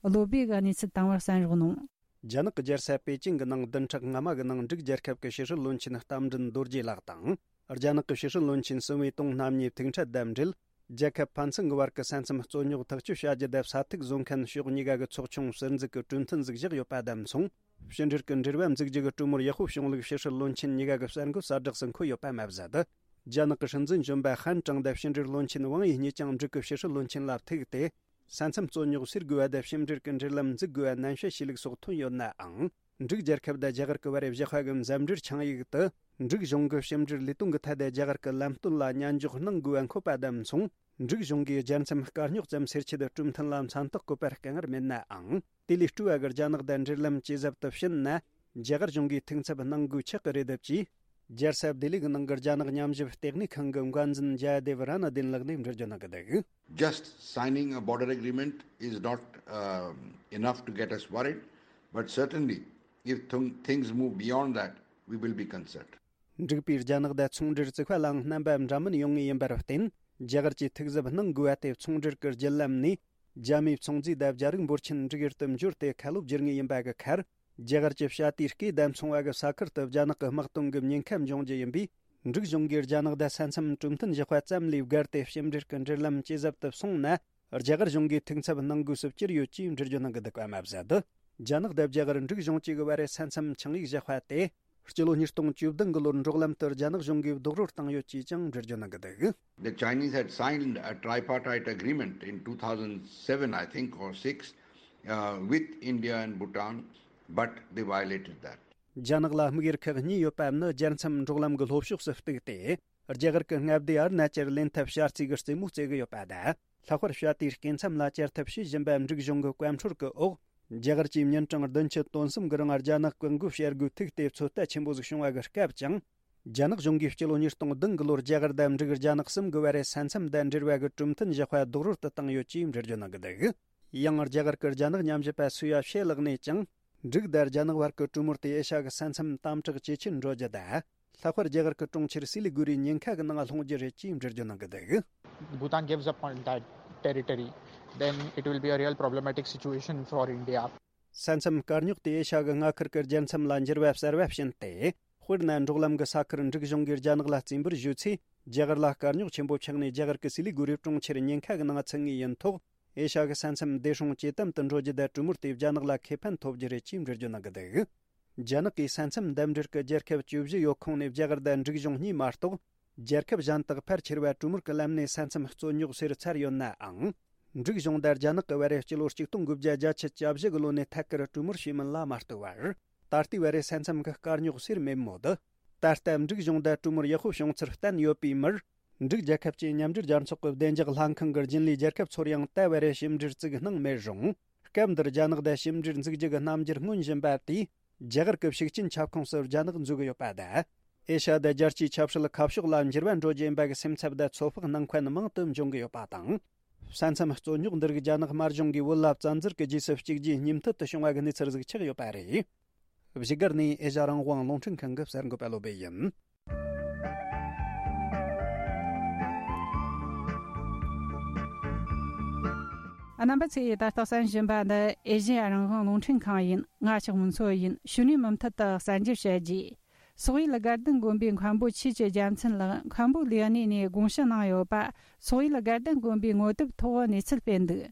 བློ་སྦེ་གིས་གནས་ཚུལ་དང་པོར་གསན་རོགས་གནང་། རྒྱ་ནག་གི་རྒྱལ་ས་པེ་ཅིང་གི་ནང་བདུན་ཕྲག་སྔ་མ་གི་ནང་འབྲུག་རྒྱལ་ཁབ་ཀྱི་ཕྱི་སྲིད་བློན་ཆེན་རྟ་མགྲིན་རྡོ་རྗེ་ལགས་དང་། རྒྱ་ནག་གི་ཕྱི་སྲིད་བློན་ཆེན་སུན་ཝེ་ཏུང་རྣམ་གཉིས་ཐུག་འཕྲད་དང་འབྲེལ། རྒྱལ་ཁབ་ཕན་ཚུན་གྱི་བར་གྱི་ས་མཚམས་རྩོད་རྙོག་ཐག་གཅོད་བྱ་རྒྱུ་དེ་ས་ཐིག་བཟོ་མཁན་ཕྱོགས་གཉིས་ཀ་གི་ཚོགས་ཆུང་ཟུར་འཛུགས་ཀྱི་གྲོས་མཐུན་ཟིག་བཞག་ཡོད་པ་དང་མཚུངས། ཕྱི་འབྲེལ་གྱི་འབྲེལ་བ་འཛུགས་རྒྱུ་གི་གྲོས་མོལ་ཡག་པོ་བྱུང་ལུགས་ཕྱི་སྲིད་བློན་ཆེན་གཉིས་ཀ་གི་གསར་འགོད་གསལ་བསྒྲགས་སུ་འཁོད་ཡོད་པ་མ་ཟད། རྒྱ་ནག་གི་སྲིད་འཛིན་གཞོན་པ་ཧན་ཀྲང་དང་ཕྱི་འབྲེལ་བློན་ཆེན་ཝང་ཡི་གཉིས་ཀྱང་འབྲུག་གི་ཕྱི་སྲིད་བློན་ཆེན་ལ་ཐུག་སྟེ། ས་མཚམས་རྩོད་རྙོག་སེལ་དགོས་པ་དང་ཕྱི་འབྲེལ་གྱི་འབྲེལ་ལམ་འཛུགས་དགོས་པ་ནན་བཤད་བྱས་ལུགས་སོགས་ཐོན་ཡོད་ནའང་། འབྲུག་རྒྱལ་ཁབ་དང་རྒྱ་གར་གྱི་བར་བཞག་པ་གི་འཛམ་འབྲེལ་ཆིངས་ཡིག་ཏུ། འབྲུག་གཞུང་གི་ཕྱི་འབྲེལ་ལས་དོན་གྱི་ཐད་དུ་རྒྱ་གར་གྱི་ལམ་སྟོན་ལ་མཉན་འཇོག་གནང་དགོས་པ་འཁོད་པ་དང་མཚུངས། འབྲུག་གཞུང་གིས་རྒྱལ་མཚམས་དཀའ་རྙོག་ཙམ་སེལ་ཆེད་གྲོས་མཐུན་ལ་མཚན་རྟགས་བཀོད་པར་དཀའ་ངལ་མེད་ནའང་། དེ་ལས་སྤྲོ་བ་གི་རྒྱ་ནག་དང་འབྲེལ་ལམ་ཇེ་ཟབ་ཏུ་ཕྱིན་ན། རྒྱ་གར་གཞུང་གིས་ཐུགས་འཚབ་གནང་དགོས་ཆགས་ཀྱི་རེད་ཅེས། རྒྱལ་ས་ལྡི་ལི་གི་ནང་གི་རྒྱ་ནག་ཉམས་ཞིབ་ལྟེ་གནས་ཁང་གི་འགན་འཛིན་ཇཱ་དེབ་ར་ན་དིན་ལགས་ནས་འགྲེལ་བརྗོད་གནང་གི་འདུག། Just signing a border agreement is not, um, enough to get us worried, but certainly, if th- things move beyond that, we will be concerned. འབྲུག་པས་རྒྱ་ནག་དང་ཚོང་འབྲེལ་བཙུགས་པ་ལའང་རྣམ་པ་འདྲ་མིན་ཡོང་ངེས་ཡིན་པར་བརྟེན། རྒྱ་གར་གྱིས་ཐུགས་གཟབ་གནང་དགོས་པ་དེ། ཚོང་འབྲེལ་གྱི་བརྒྱུད་ལམ་ནས་རྒྱ་མིའི་ཚོང་རྫས་དང་རྒྱ་རིགས་འབོར་ཆེན་འབྲུག་ཡུལ་དུ་འབྱོར་ཏེ་ཁ་ལོ་བསྒྱུར་ངེས་ཡིན་པ་གི་ཁར། རྒྱ་གར་གྱི་བྱ་དེའི་སྐེ་དང་མཚུངས་པ་གི་ས་ཁུལ་དུ་རྒྱ་ནག་གིས་དམག་གཏོང་གི་ཉེན་ཁ་འབྱུང་རྒྱུ་ཡིན་པས། འབྲུག་གཞུང་གིས་རྒྱ་ནག་དང་ས་མཚམས་གྲོས་མཐུན་བཞག་པ་ཙམ་ལས་བརྒལ་ཏེ་ཕྱི་འབྲེལ་གྱི་འབྲེལ་ལམ་ཇེ་ཟབ་ཏུ་སོང་ན། རྒྱ་གར་གཞུང་གིས་ཐུགས་འཚབ་གནང་དགོས་སུ་གྱུར་ཡོད་ཅེས་འགྲེལ་བརྗོད་གནང་གི་འདུག་པ་མ་ཟད། རྒྱ་ནག་དང་རྒྱ་གར་འབྲུག་གཞུང་བཅས་ཀྱི་བར་ས་མཚམས་ཆིངས་ཡིག་བཞག་པ་དེ། སྤྱི་ལོ་ཉིས་སྟོང་བཅུ་བདུན་གྱི་ལོར་འབྲོག་ལམ་དུ་རྒྱ་ནག་གཞུང་གིས་རྡོག་རོལ་བཏང་ཡོད་ཅེས་ཀྱང་འགྲེལ་བརྗོད་གནང་གི་འདུག། The Chinese had signed a tripartite agreement in two thousand seven, I think, or six, uh, with India and Bhutan, but they violated that. རྒྱ་ནག་ལ་དམིགས་ཡུལ་ཁག་གཉིས་ཡོད་པ་ནི། རྒྱལ་མཚམས་འབྲོག་ལམ་གྱི་ལྷོ་ཕྱོགས་སུ་གཏུགས་ཏེ། རྒྱ་གར་གྱི་མངའ་སྡེ་ཨ་རུ་ན་ཅལ་ལེན་ཐབས་བྱ་རྩིས་ཀྱི་རྩེད་མོ་རྩེ་གི་ཡོད་པ་དང་། ལྷག་པར་བྱ་དེའི་སྐེ་མཚམས་ལ་བཅར་ཐབས་བྱེད་བཞིན་པ་འབྲུག་གཞུང་གི་བཀའ་འཁྲོལ་གྱི་འོག་རྒྱ་གར་གྱི་མྱུར་གྲངས་བདུན་ཅུ་དོན་གསུམ་གྱི་རིང་རྒྱ་ནག་གི་མགོ་བཤར་དགོས་ཐུག་སྟེ་ཚོད་ལྟ་ཆེན་པོ་ཟིག་བྱུང་བ་གི་སྐབས་ཀྱང་། རྒྱ་ནག་གཞུང་གིས་སྤྱི་ལོ་ཉིས་སྟོང་བདུན་གྱི་ལོར་རྒྱ་གར་དང་འབྲུག་རྒྱ་ནག་གསུམ་གྱི་བར་ས་མཚམས་དང་འབྲེལ་བ་གི་གྲོས་མཐུན་བཞག་པ་རྡོག་རོལ་དུ་བཏང་ཡོད་ཅེས་འགྲེལ་བརྗོད་གནང་གི་འདུག། ཡང་རྒྱ་གར་གྱི་རྒྱ་ནག་ཉམས་ཞིབ་པ་སུའུ་ཡ་ཤེ་ལགས་ནས་ཀྱང་། འབྲུག་དང་རྒྱ་ནག་བར་གྱི་གྲོས་མོལ་དེ་ཨེ་ཤ་གི་ས་མཚམས་དམ་དྲག་ཇེ་ཆེར་འགྲོ་རྒྱུ་དང་། ལྷག་པར་རྒྱ་གར་གྱི་གྲོང་ཁྱེར་སི་ལི་གུ་རིའི་ཉེན་ཁ་གི་ནང་ལྷུང་རྒྱུ་རེད་ཅེས་འགྲེལ་བརྗོད་གནང་གི་འདུག། Bhutan gives up on that territory, then it will be a real problematic situation for India. ས་མཚམས་དཀའ་རྙོག་དེ་ཨེ་ཤ་གི་མངའ་ཁུལ་གྱི་རྒྱལ་མཚམས་ལ་འགྱུར་བ་གསར་བ་ཕྱིན་ཏེ། དཔེར་ན། འབྲོག་ལམ་གྱི་ས་ཁུལ་འབྲུག་གཞུང་གིས་རྒྱ་ནག་ལ་རྩིས་འབུལ་ཞུས་ཚེ། རྒྱ་གར་ལ་དཀའ་རྙོག་ཆེན་པོ་ཆགས་ནས། རྒྱ་གར་གྱི་སི་ལི་གུ་རི་གྲོང་ཁྱེར་ཉེན་ཁ་གི་ནང་ཚུད་ངེས་ཡིན་ཐོག་ཨེ་ཤ་གི་ས་མཚམས་བདེ་སྲུང་ཇེ་དམ་དུ་འགྲོ་རྒྱུ་དང་། གྲོས་མོལ་དེས་རྒྱ་ནག་ལ་ཁེ་ཕན་ཐོབ་རྒྱུ་རེད་ཅེས་འགྲེལ་བརྗོད་གནང་གི་འདུག། རྒྱ་ནག་གིས་ས་མཚམས་འདེམས་སྒྲུག་གི་རྒྱལ་ཁབ་བཅུ་བཞི་ཡོད་ཁོངས་ནས་རྒྱ་གར་དང་འབྲུག་གཞུང་གཉིས་མ་གཏོགས། རྒྱལ་ཁབ་གཞན་དག་ཕལ་ཆེར་བ་གྲོས་མོལ་གྱི་ལམ་ནས་ས་མཚམས་རྩོད་རྙོག་སེལ་ཚར་ཡོད་ནའང་། འབྲུག་གཞུང་དང་རྒྱ་ནག་གི་བར་སྤྱི་ལོ་གཅིག་སྟོང་དགུ་བརྒྱ་བརྒྱད་ཅུ་གྱ་བཞི་གི་ལོ་ནས་ཐད་ཀར་གྲོས་མོལ་བྱས་མིན་ལ་མ་ལྟོས་པར། ད་ལྟའི་བར་ས་མཚམས་ཀྱི་དཀའ་རྙོག་སེལ་མེད་མོད། ད་ལྟ་འབྲུག་གཞུང་དང་གྲོས་མོལ་ཡག་པོ་བྱུང་ཚུལ་བསྟན་ཡོད་པའི་མིར། འབྲུག་རྒྱལ་ཁབ་ཀྱི་མཉམ་འབྲེལ་རྒྱལ་ཚོགས་ཀྱི་བདེ་འཇགས་ལྷན་ཁང་གི་རྒྱུན་ལས་རྒྱལ་ཁབ་ཚོར་ཡང་ད་བར་ཞིབ་འབྲེལ་བཙུགས་གནང་མེད་རུང་། སྐབས་འདིར་རྒྱ་ནག་དང་ཞིབ་འབྲེལ་འཛུགས་རྒྱུ་གི་རྣམ་འགྱུར་མངོན་བཞིན་པ་དེས། རྒྱ་གར་གྱི་ཤུགས་རྐྱེན་ཁྱབ་ཁོངས་སུ་རྒྱ་ནག་འཛུལ་གི་ཡོད་པ་དང་། ཨེ་ཤ་ཡ་དང་རྒྱལ་སྤྱིའི་ཆབ་སྲིད་ཁ་ཕྱོགས་ལ་འགྱུར་བ་འགྲོ་རྒྱུ་ཡིན་པ་གི་སེམས་འཚབ་དང་ཚོད་དཔག་གནང་མཁན་མང་དུ་འབྱུང་གི་ཡོད་པ་དང་། ས་མཚམས་རྩོད་རྙོག་འདི་རིགས་རྒྱ་ནག་དམར་གཞུང་གིས་བོད་ལ་བཙན་འཛུལ་གྱི་རྗེས་སུ་གཅིག་རྗེས་གཉིས་མཐུད་དུ་བྱུང་བ་གི་གནས་ཚུལ་ཟིག་ཆགས་ཡོད་པ་རེད། བཞུགས་སྒར་ནས་ཨེ་ཤ་ཡ་རང་དབང་རླུང་འཕྲིན་ཁང་གི་གསར་འགོད་པ་བློ་བྷེ་ཡིན། རྣམ་པ་ཚོས་ད་ལྟ་གསན་བཞིན་པ་འདི་ཨེ་ཤ་ཡ་རང་དབང་རླུང་འཕྲིན་ཁང་ཡིན། ང་ཞག་མུན་མཚོ་ཡིན། ཕྱི་ནས་མུ་མཐུད་དུ་གསར་འགྱུར་བཤད་རྒྱུ། སོག་ཡུལ་དགའ་ལྡན་དགོན་པའི་མཁན་པོ་ཆོས་ཀྱི་རྒྱལ་མཚན་ལགས་མཁན་པོ་ལས་གནས་ནས་དགོངས་ཞུ་གནང་ཡོད་པ། སོག་ཡུལ་དགའ་ལྡན་དགོན་པའི་ངོ་དེབ་ཐོག་གནས་ཚུལ་སྤེལ་འདུག་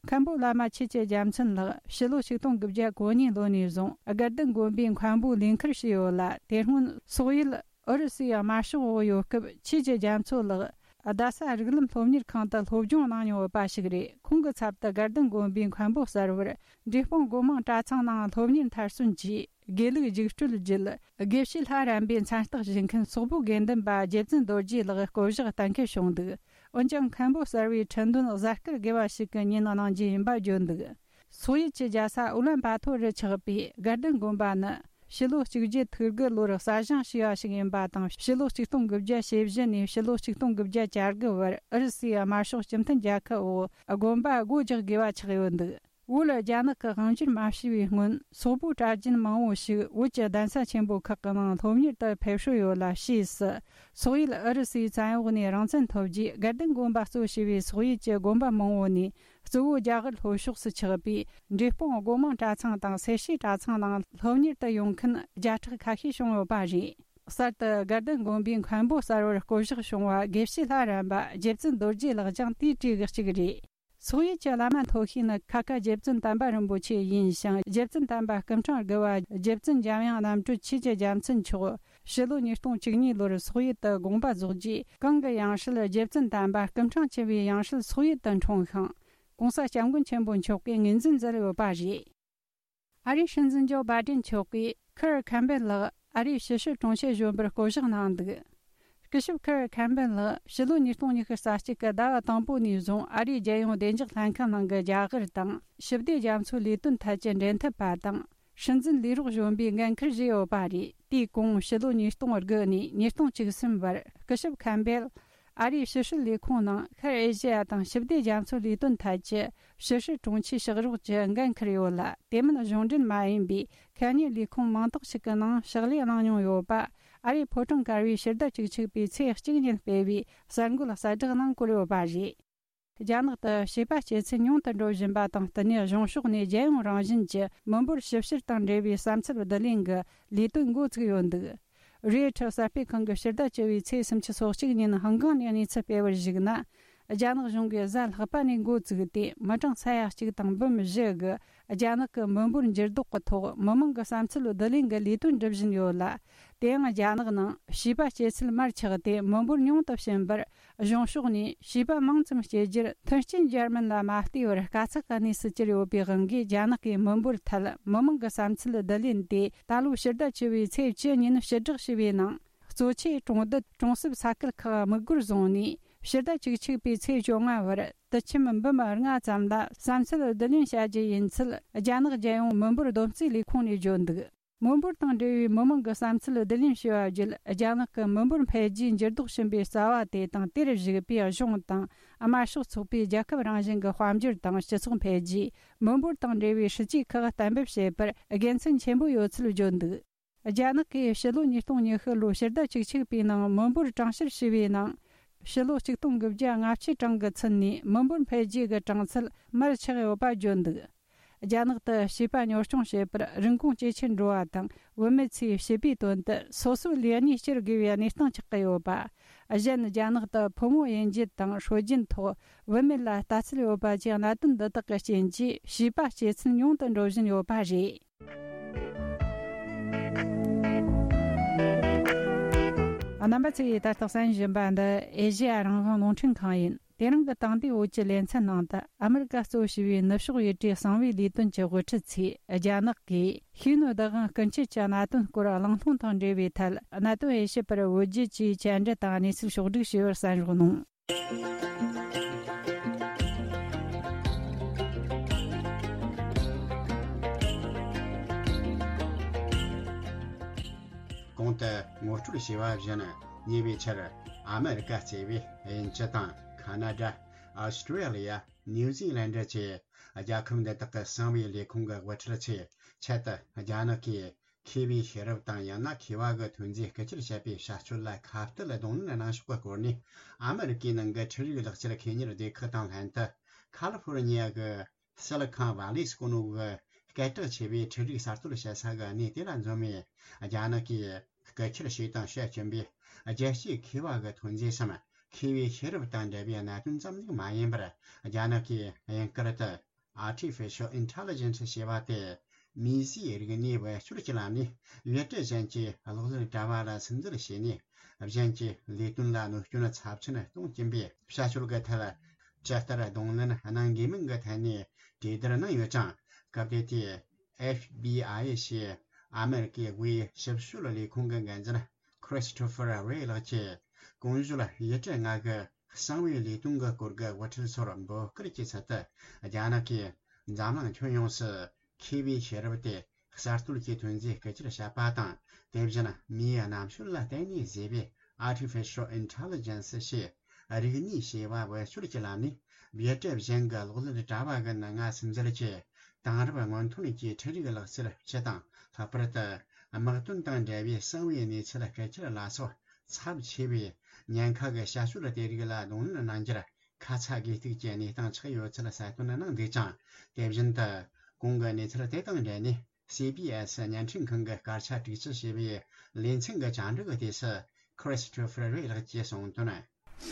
མཁན་པོ་བླ་མ་ཆོས་ཀྱི་རྒྱལ་མཚན་ལགས་ཕྱི་ལོ་ཆིག་སྟོང་དགུ་བརྒྱ་གོ་གཉིས་ལོ་ནས་བཟུང་དགའ་ལྡན་དགོན་པའི་མཁན་པོའི་ལས་འཁུར་བྱས་ཡོད་ལ། དེ་སྔོན་སོག་ཡུལ་ཨུ་རུ་སུའི་དམར་ཤོག་འོག་ཡོད་སྐབས་ཆོས་ཀྱི་རྒྱ་མཚོ་ལགས་རྡ་ས་རིགས་ལམ་སློབ་གཉེར་ཁང་དུ་སློབ་སྦྱོང་གནང་མྱོང་ཡོད་པ་ཞིག་རེད། ཁོང་གི་ཚབ་ཏུ་དགའ་ལྡན་དགོན་པའི་མཁན་པོ་གསར་བར་འབྲས་སྤུངས་སྒོ་མང་གྲྭ་ཚང་ནང་སློབ་གཉེར་མཐར་སོན་གྱིས། དགེ་ལུགས་རྒྱུགས་སྤྲོད་བརྒྱུད། དགེ་བཤེས་ལྷ་རམས་པའི་མཚན་རྟགས་བཞེས་མཁན་སོག་པོའི་དགེ་འདུན་པ་རྗེ་བཙུན་རྡོ་རྗེ་ལགས་བསྐོ་གཞག་གཏན་འཁེལ་བྱུང་འདུག་འོན་ཀྱང་མཁན་པོ་གསར་བའི་ཁྲི་འདོན་གཟའ་སྐར་དགེ་བ་ཞིག་གི་ཉིན་གནང་རྒྱུ་ཡིན་པ་བརྗོད་འདུག་སོག་ཡུལ་གྱི་རྒྱལ་ས་ཨུ་ལན་པ་ཐོ་རུ་ཆགས་པའི་དགའ་ལྡན་དགོན་པ་ནི། ཕྱི་ལོ་གཅིག་བརྒྱད་ཐིག་དགུ་ལོར་གསར་བཞེངས་བྱས་པ་ཞིག་ཡིན་པ་དང་། ཕྱི་ལོ་ཆིག་སྟོང་དགུ་བརྒྱ་ཞེ་བཞི་ནས་ཕྱི་ལོ་ཆིག་སྟོང་དགུ་བརྒྱ་གྱ་དགུ་བར་ཨུ་རུ་སུའི་དམར་ཤོག་སྤྱི་མཐུན་རྒྱལ་ཁབ་འོག་དགོན་པ་སྒོ་རྒྱག་དགོས་པ་ཆགས་ཡོད་འདུག་བོད་རྒྱ་ནག་གི་དབང་སྒྱུར་མ་བྱས་པའི་སྔོན། སོག་པོའི་གྲྭ་རྒྱུན་མང་བོ་ཞིག་བོད་ཀྱི་གདན་ས་ཆེན་པོ་ཁག་གི་ནང་སློབ་གཉེར་དུ་ཕེབས་སྲོལ་ཡོད་ལ། ཕྱིས་སུ་སོག་ཡུལ་ཨུ་རུ་སུའི་བཙན་འོག་ནས་རང་བཙན་ཐོབ་རྗེས། དགའ་ལྡན་དགོན་པ་གཙོ་བྱས་པའི་སོག་ཡུལ་གྱི་དགོན་པ་མང་བོ་ནས་གཙོ་བོ་རྒྱ་གར་ལྷོ་ཕྱོགས་སུ་ཆགས་པའི་འབྲས་སྤུངས་སྒོ་མང་གྲྭ་ཚང་དང་སེར་བྱེས་གྲྭ་ཚང་ནང་སློབ་གཉེར་དུ་ཡོང་མཁན་བརྒྱ་ཕྲག་ཁ་ཤས་བྱུང་ཡོད་པ་རེད། གསར་དུ་དགའ་ལྡན་དགོན་པའི་མཁན་པོ་གསར་བར་བསྐོ་གཞག་བྱུང་བ་དགེ་བཤེས་ལྷ་རམས་པ་རྗེ་བཙུན་རྡོ་རྗེ་ལགས་ཀྱང་དེའི་གྲས་ཀྱི་གཅིག་རེད། སོག་ཡུལ་གྱི་བླ་མ་མཐོ་ཤོས་ནི་ཁ་ཁ་རྗེ་བཙུན་དམ་པ་རིན་པོ་ཆེ་ཡིན་ཞིང་། རྗེ་བཙུན་དམ་པ་སྐུ་ཕྲེང་དགུ་བ་རྗེ་བཙུན་འཇམ་དབྱངས་རྣམ་གྲོལ་ཆོས་ཀྱི་རྒྱལ་མཚན་མཆོག་ཕྱི་ལོ་ཉིས་སྟོང་བཅུ་གཉིས་ལོར་སོག་ཡུལ་དུ་དགོངས་པ་རྫོགས་རྗེས། གང་གི་ཡང་སྲིད་རྗེ་བཙུན་དམ་པ་སྐུ་ཕྲེང་བཅུ་བའི་ཡང་སྲིད་སོག་ཡུལ་དུ་འཁྲུངས་ཤིང་། ྋགོང་ས་ྋསྐྱབས་མགོན་ཆེན་པོ་མཆོག་གིས་ངོས་འཛིན་མཛད་ཡོད་པ་རེད། ཨ་རིའི་སྲིད་འཛིན་ཇོ་བྷའི་ཌེན་མཆོག་གིས་ཁར་ཁེམ་པེལ་ལགས་ཨ་རིའི་ཕྱི་སྲིད་དྲུང་ཆེ་གཞོན་པར་བསྐོ་གཞག་གནང་འདུག་སྐུ་ཞབས་ཁར་ཁེམ་པེལ་ལགས་ཕྱི་ལོ་ཉིས་སྟོང་ཉི་ཤུ་རྩ་གཅིག་གི་ཟླ་བ་དང་པོ་ནས་བཟུང་ཨ་རིའི་རྒྱལ་ཡོངས་བདེ་འཇགས་ལྷན་ཁང་ནང་གི་རྒྱ་གར་དང་ཞི་བདེ་རྒྱ་མཚོའི་ལས་དོན་ཐད་ཀྱི་འབྲེལ་མཐུད་པ་དང་། སྲིད་འཛིན་ལས་རོགས་གཞོན་པའི་འགན་འཁུར་བཞེས་ཡོད་པ་རེད། དེའི་གོང་ཕྱི་ལོ་ཉིས་སྟོང་དགུ་ནས་ཉིས་སྟོང་བཅུ་གསུམ་བར་སྐུ་ཞབས་ཁེམ་པེལ་ཨ་རིའི་ཕྱི་སྲིད་ལས་ཁུངས་ནང་ཤར་ཨེ་ཤེ་ཡ་དང་ཞི་བདེ་རྒྱ་མཚོའི་ལས་དོན་ཐད་ཀྱི་ཕྱི་སྲིད་དྲུང་ཆེའི་ཕྱག་རོགས་ཀྱི་འགན་འཁུར་ཡོད་ལ། དེ་མིན་གཞུང་འབྲེལ་མ་ཡིན་པའི་ཁ་ཉིན་ལས་ཁུངས་མང་དག་ཞིག་གི་ནང་ཕྱག་ལས་གནང་མྱོང་ཡོད་པ། ཨ་རིའི་ཕོ་བྲང་དཀར་པོའི་ཕྱི་ཟླ་བཅུ་གཅིག་པའི་ཚེས་གཅིག་ཉིན་སྤེལ་བའི་གསར་འགོད་གསལ་བསྒྲགས་ནང་བཀོད་ཡོད་པ་རེད། རྒྱ་ནག་ཏུ་བྱིས་པ་སྐྱེ་ཚུལ་ཉུང་དུ་འགྲོ་བཞིན་པ་དང་བསྟུན་ནས། གཞུང་ཕྱོགས་ནས་རྒྱལ་ཡོངས་རང་བཞིན་གྱི་མི་འབོར་ཞིབ་བཤེར་དང་འབྲེལ་བའི་བསམ་ཚུལ་བསྡུ་ལེན་གྱི་ལས་དོན་འགོ་བཙུགས་ཡོད་འདུག་རེའི་ཁྲི་གསར་སྤེལ་ཁང་གིས་ཕྱི་ཟླ་བཅུ་བའི་ཚེས་སུམ་ཅུ་སོ་གཅིག་ཉིན་ཧང་ཀང་ནས་གནས་ཚུལ་སྤེལ་བར་གཞིགས་ན། རྒྱ་ནག་གཞུང་གིས་གཟའ་ལྷག་པ་ནས་འགོ་བཙུགས་ཏེ། མི་གྲངས་ས་ཡ་གཅིག་དང་འབུམ་བཞི་གི་རྒྱ་ནག་གི་མི་འབོར་འགྱུར་ལྡོག་གི་ཐོག་མི་མང་གི་བསམ་ཚུལ་བསྡུ་ལེན་གྱི་ལས་དོན་སྒྲུབ་བཞིན་ཡོད་ལ། དེ་ཡང་རྒྱ་ནག་ནང་བྱིས་པ་སྐྱེ་ཚུལ་མར་ཆག་སྟེ་མི་འབོར་ཉུང་དུ་ཕྱིན་པར། གཞུང་ཕྱོགས་ནས་བྱིས་པ་མང་ཙམ་སྐྱེ་རྒྱུར་མཐུན་རྐྱེན་སྦྱར་མིན་ལ་མ་ལྟོས་པར། དཀའ་ཚེགས་ཀྱི་གནས་སུ་གྱུར་ཡོད་པའི་དབང་གིས། རྒྱ་ནག་གིས་མི་འབོར་ཐད་མི་མང་གི་བསམ་ཚུལ་བསྡུ་ལེན་དེ་ད་ལོའི་ཕྱི་ཟླ་བཅུ་བའི་ཚེས་བཅུ་ཉིན་ཕྱིར་བསྒྲགས་བྱས་པའི་ནང་། གཙོ་ཆེ་གྲོང་རྡལ་གྲོང་གསེབ་ས་ཁུལ་ཁག་དམིགས་སྒོར་བཟུང་ནས། ཕྱི་ཟླ་བཅུ་གཅིག་པའི་ཚེས་བཅོ་ལྔ་བར་དུད་ཁྱིམ་འབུམ་ལྔ་ཙམ་ལ་བསམ་ཚུལ་བསྡུ་ལེན་བྱ་རྒྱུ་ཡིན་ཚུལ། རྒྱ་ནག་རྒྱལ་ཡོངས་མི་འབོར་བསྡོམས་རྩིས་ལས་ཁུངས་ནས་བརྗོད་འདུག་མི་འབོར་དང་འབྲེལ་བའི་མི་མང་གི་བསམ་ཚུལ་བསྡུ་ལེན་བྱས་པ་བརྒྱུད། རྒྱ་ནག་གི་མི་འབོར་འཕེལ་རྒྱས་འགྱུར་ལྡོག་ཕྱིན་པའི་རྩ་བ་དེ་དང་། དེར་གཞིགས་པའི་གཞུང་དང་དམར་ཤོག་ཚོགས་པའི་རྒྱལ་ཁབ་རང་བཞིན་གྱི་དཔལ་འབྱོར་དང་སྤྱི་ཚོགས་འཕེལ་རྒྱས། མི་འབོར་དང་འབྲེལ་བའི་སྲིད་ཇུས་ཁག་གཏན་འབེབས་བྱེད་པར་དགེ་མཚན་ཆེན་པོ་ཡོད་ཚུལ་བརྗོད་འདུག་རྒྱ་ནག་གིས་ཕྱི་ལོ་ཉིས་སྟོང་ཉི་ཤུ་ལོའི་ཕྱི་ཟླ་བཅུ་གཅིག་པའི་ནང་མི་འབོར་གྲངས་བཤེར་བྱས་པའི་ནང་། ཕྱི་ལོ་ཆིག་སྟོང་དགུ་བརྒྱ་ལྔ་བཅུའི་གྲངས་ཀྱི་ཚུན་ནས་མི་འབོར་འཕེལ་རྒྱས་ཀྱི་གྲངས་ཚད་མར་ཆག་ཡོད་པ་བརྗོད་འདུག་རྒྱ་ནག་ཏུ་བྱིས་པ་གཉོར་སྐྱོང་བྱེད་པར་རིན་གོང་ཇེ་ཆེར་འགྲོ་བ་དང་། བུད་མེད་ཚོས་བྱིས་པའི་དོན་དུ་སོ་སོའི་ལས་གནས་བསྐྱུར་དགོས་པའི་གནས་སྟངས་ཆགས་ཀྱི་ཡོད་པ། གཞན། རྒྱ་ནག་ཏུ་ཕོ་མོ་དབྱེ་འབྱེད་དང་སྲོལ་རྒྱུན་ཐོག་བུད་མེད་ལ་ལྟ་ཚུལ་ཡོད་པ་བཅས། གནད་དོན་འདི་དག་གི་རྐྱེན་གྱིས་བྱིས་པ་སྐྱེ་ཚུལ་ཉུང་དུ་འགྲོ་བཞིན་ཡོད་པ་རེད། རྣམ་པ་ཚོས་ད་ལྟ་གསན་བཞིན་པ་འདི་ཨེ་ཤེ་ཡ་རང་དབང་རླུང་འཕྲིན་ཁང་ཡིན། དེ་རིང་གི་དེང་དུས་བོད་ཀྱི་ལེ་ཚན་ནང་དུ། ཨ་མི་རི་ཀ་གཙོ་བྱས་པའི་ནུབ་ཕྱོགས་ཡུལ་གྲུའི་གསང་བའི་ལས་དོན་གྱི་དབུ་ཁྲིད་ཚོས། རྒྱ་ནག་གིས་ཤེས་ཡོན་བདག་དབང་སྐུལ་འཆར་གྱི་གནད་དོན་སྐོར་གླེང་སློང་དང་འབྲེལ་བའི་ཐད། གནད་དོན་དབྱེ་ཞིབ་པར་བོད་བརྒྱུད་ཀྱིས་བཅར་འདྲི་དང་གནས་ཚུལ་ཕྱོགས་བསྒྲིགས་བྱས་པར་གསན་རོགས་གནང་། གོང་དུ་ངོ་ ཞུ་བ་བཞིན། ཉེ་བའི་ཆར་ཨ་མེ་རི་ཀ་གཙོས་པའི་དབྱིན་ཇི་དང་ཁ་ན་ཌ། ཨོ་སི་ཀྲི་ལི་ཡ། ནིའུ་ཛི་ལན་ཌི་བཅས་རྒྱལ་ཁབ་འདི་དག་གི་གསང་བའི་ལས་ཁུངས་ཀྱི་དབུ་ཁྲིད་ཚོའི་ཆེད་དུ། རྒྱ་ནག་གིས་མཁས་པའི་ཤེས་རབ་དང་ཡང་ན་མཁས་པ་གི་ཐོན་རྫས་རྐུ་འཁྱེར་བྱས་པའི་བྱ་སྤྱོད་ལ་ཁ་གཏད་གདོང་ལེན་གནང་ཕྱོགས་ཀྱི་སྐོར་ནས། ཨ་མེ་རི་ཀའི་ནང་གི་འཕྲུལ་རིག་ལག་ཁྱེར་ཁེ་གཉེར་སྡེ་ཁག་དང་ལྷན་དུ། ཁ་ལི་ཧྥོར་ནི་ཡ་གི་སི་ལི་ཁོན་ཝ་ལི་ཟེར་གོ་ནོ་གི་སྐད་གྲགས་ཆེ་བའི་འཕྲུལ་རིག་གསར་གཏོད་བྱེད་ས་གི་གནས་དེ་ལ་འཛོམས་ནས། རྒྱ་ནག་གིས་རྐུ་འཁྱེར་བྱས་དང་བྱེད་ཀྱིན་པའི་རྒྱལ་སྤྱིའི་མཁས་པ་གི་ཐོན་རྫས་སམ། མཁས་པའི་ཤེས་རབ་དང་འབྲེལ་བའི་གནད་དོན་ཙམ་ཞིག་མ་ཡིན་པར། རྒྱ་ནག་གིས་དབྱིན་སྐད་དུ་Artificial Intelligence ཞེས་པ་སྟེ། མིང་གཞིའི་རིག་གནས་བེད་སྤྱོད་ཀྱི་ལམ་ནས་བེད་སྤྱོད་ཅན་གྱི་གློག་ཀླད་དྲ་བ་ལ་སིམ་འཛུལ་བྱས་ནས། གཞན་གྱི་ལས་དོན་ལ་གནོད་སྐྱོན་ཚབས་ཆེན་གཏོང་གིན་པའི་བྱ་སྤྱོད་ཀྱི་ཐད། ཇི་ལྟར་གདོང་ལེན་གནང་དགོས་མིན་གྱི་ཐད་ནས་གྲོས་བསྡུར་གནང་ཡོད་ཅིང་། སྐབས་དེ་དུས་ཨེཕ་བི་ཨའི་ཞེས་ཨ་མེ་རི་ཀའི་དབུས་ཞིབ་དཔྱོད་ལས་ཁུངས་ཀྱི་འགན་འཛིན་Christopher Wray ལགས་ཀྱིས། གོང་ཞུས་ཡུལ་གྲུ་ལྔ་གི་གསང་བའི་ལས་དོན་གྱི་སྐོར་གྱི་དབུ་ཁྲིད་ཚོར་འབོད་སྐུལ་གྱི་ཚུལ་དུ། རྒྱ་ནག་གིས་འཛམ་གླིང་ཁྱོན་ཡོངས་སུ་མཁས་པའི་ཤེས་རབ་སྟེ། གསར་གཏོད་ཀྱི་ཐོན་རྫས་རྐུ་འཁྱེར་བྱས་པ་དང་། དེ་བཞིན་མིའི་རྣམ་དཔྱོད་ལ་བརྟེན་ནས་བཟོས་པའི་Artificial Intelligence ཞེས་རིག་ནུས་ཞེས་པ་བེད་སྤྱོད་ཀྱི་ལམ་ནས་བེད་སྤྱོད་གཞན་གྱི་གློག་ཀླད་དྲ་བ་གི་ནང་ང་སིམ་འཛུལ་གྱིས། དེང་རབས་སྔོན་ཐོན་གྱི་འཕྲུལ་རིག་ལག་རྩལ་སྤྱི་དང་། ལྷག་པར་དུ་དམག་དོན་དང་འབྲེལ་བའི་གསང་བའི་གནས་ཚུལ་རྐུ་འཁྱེར་ལ་སོགས་ཚབས་ཆེ་བའི་ཉེན་ཁ་གི་བྱ་སྤྱོད་དེ་རིགས་ལ་གདོང་ལེན་གནང་རྒྱུར། ཁ་ཚ་དགོས་གཏུགས་ཀྱི་གནས་སྟངས་ཆགས་ཡོད་ཚུལ་གསལ་སྟོན་གནང་འདུག་ཅིང་། དེ་བཞིན་དུ་གོང་གི་གནས་ཚུལ་དེ་དང་འབྲེལ་ནས། སི་བི་ཨེ་སི་བརྙན་འཕྲིན་ཁང་གི་སྐར་ཆ་དྲུག་ཅུ་ཞེས་པའི་ལེ་ཚན་གྱི་བཅར་འདྲི་གི་དུས་སུ། Christopher Wray ལགས་ཀྱིས་གསུངས་དོན།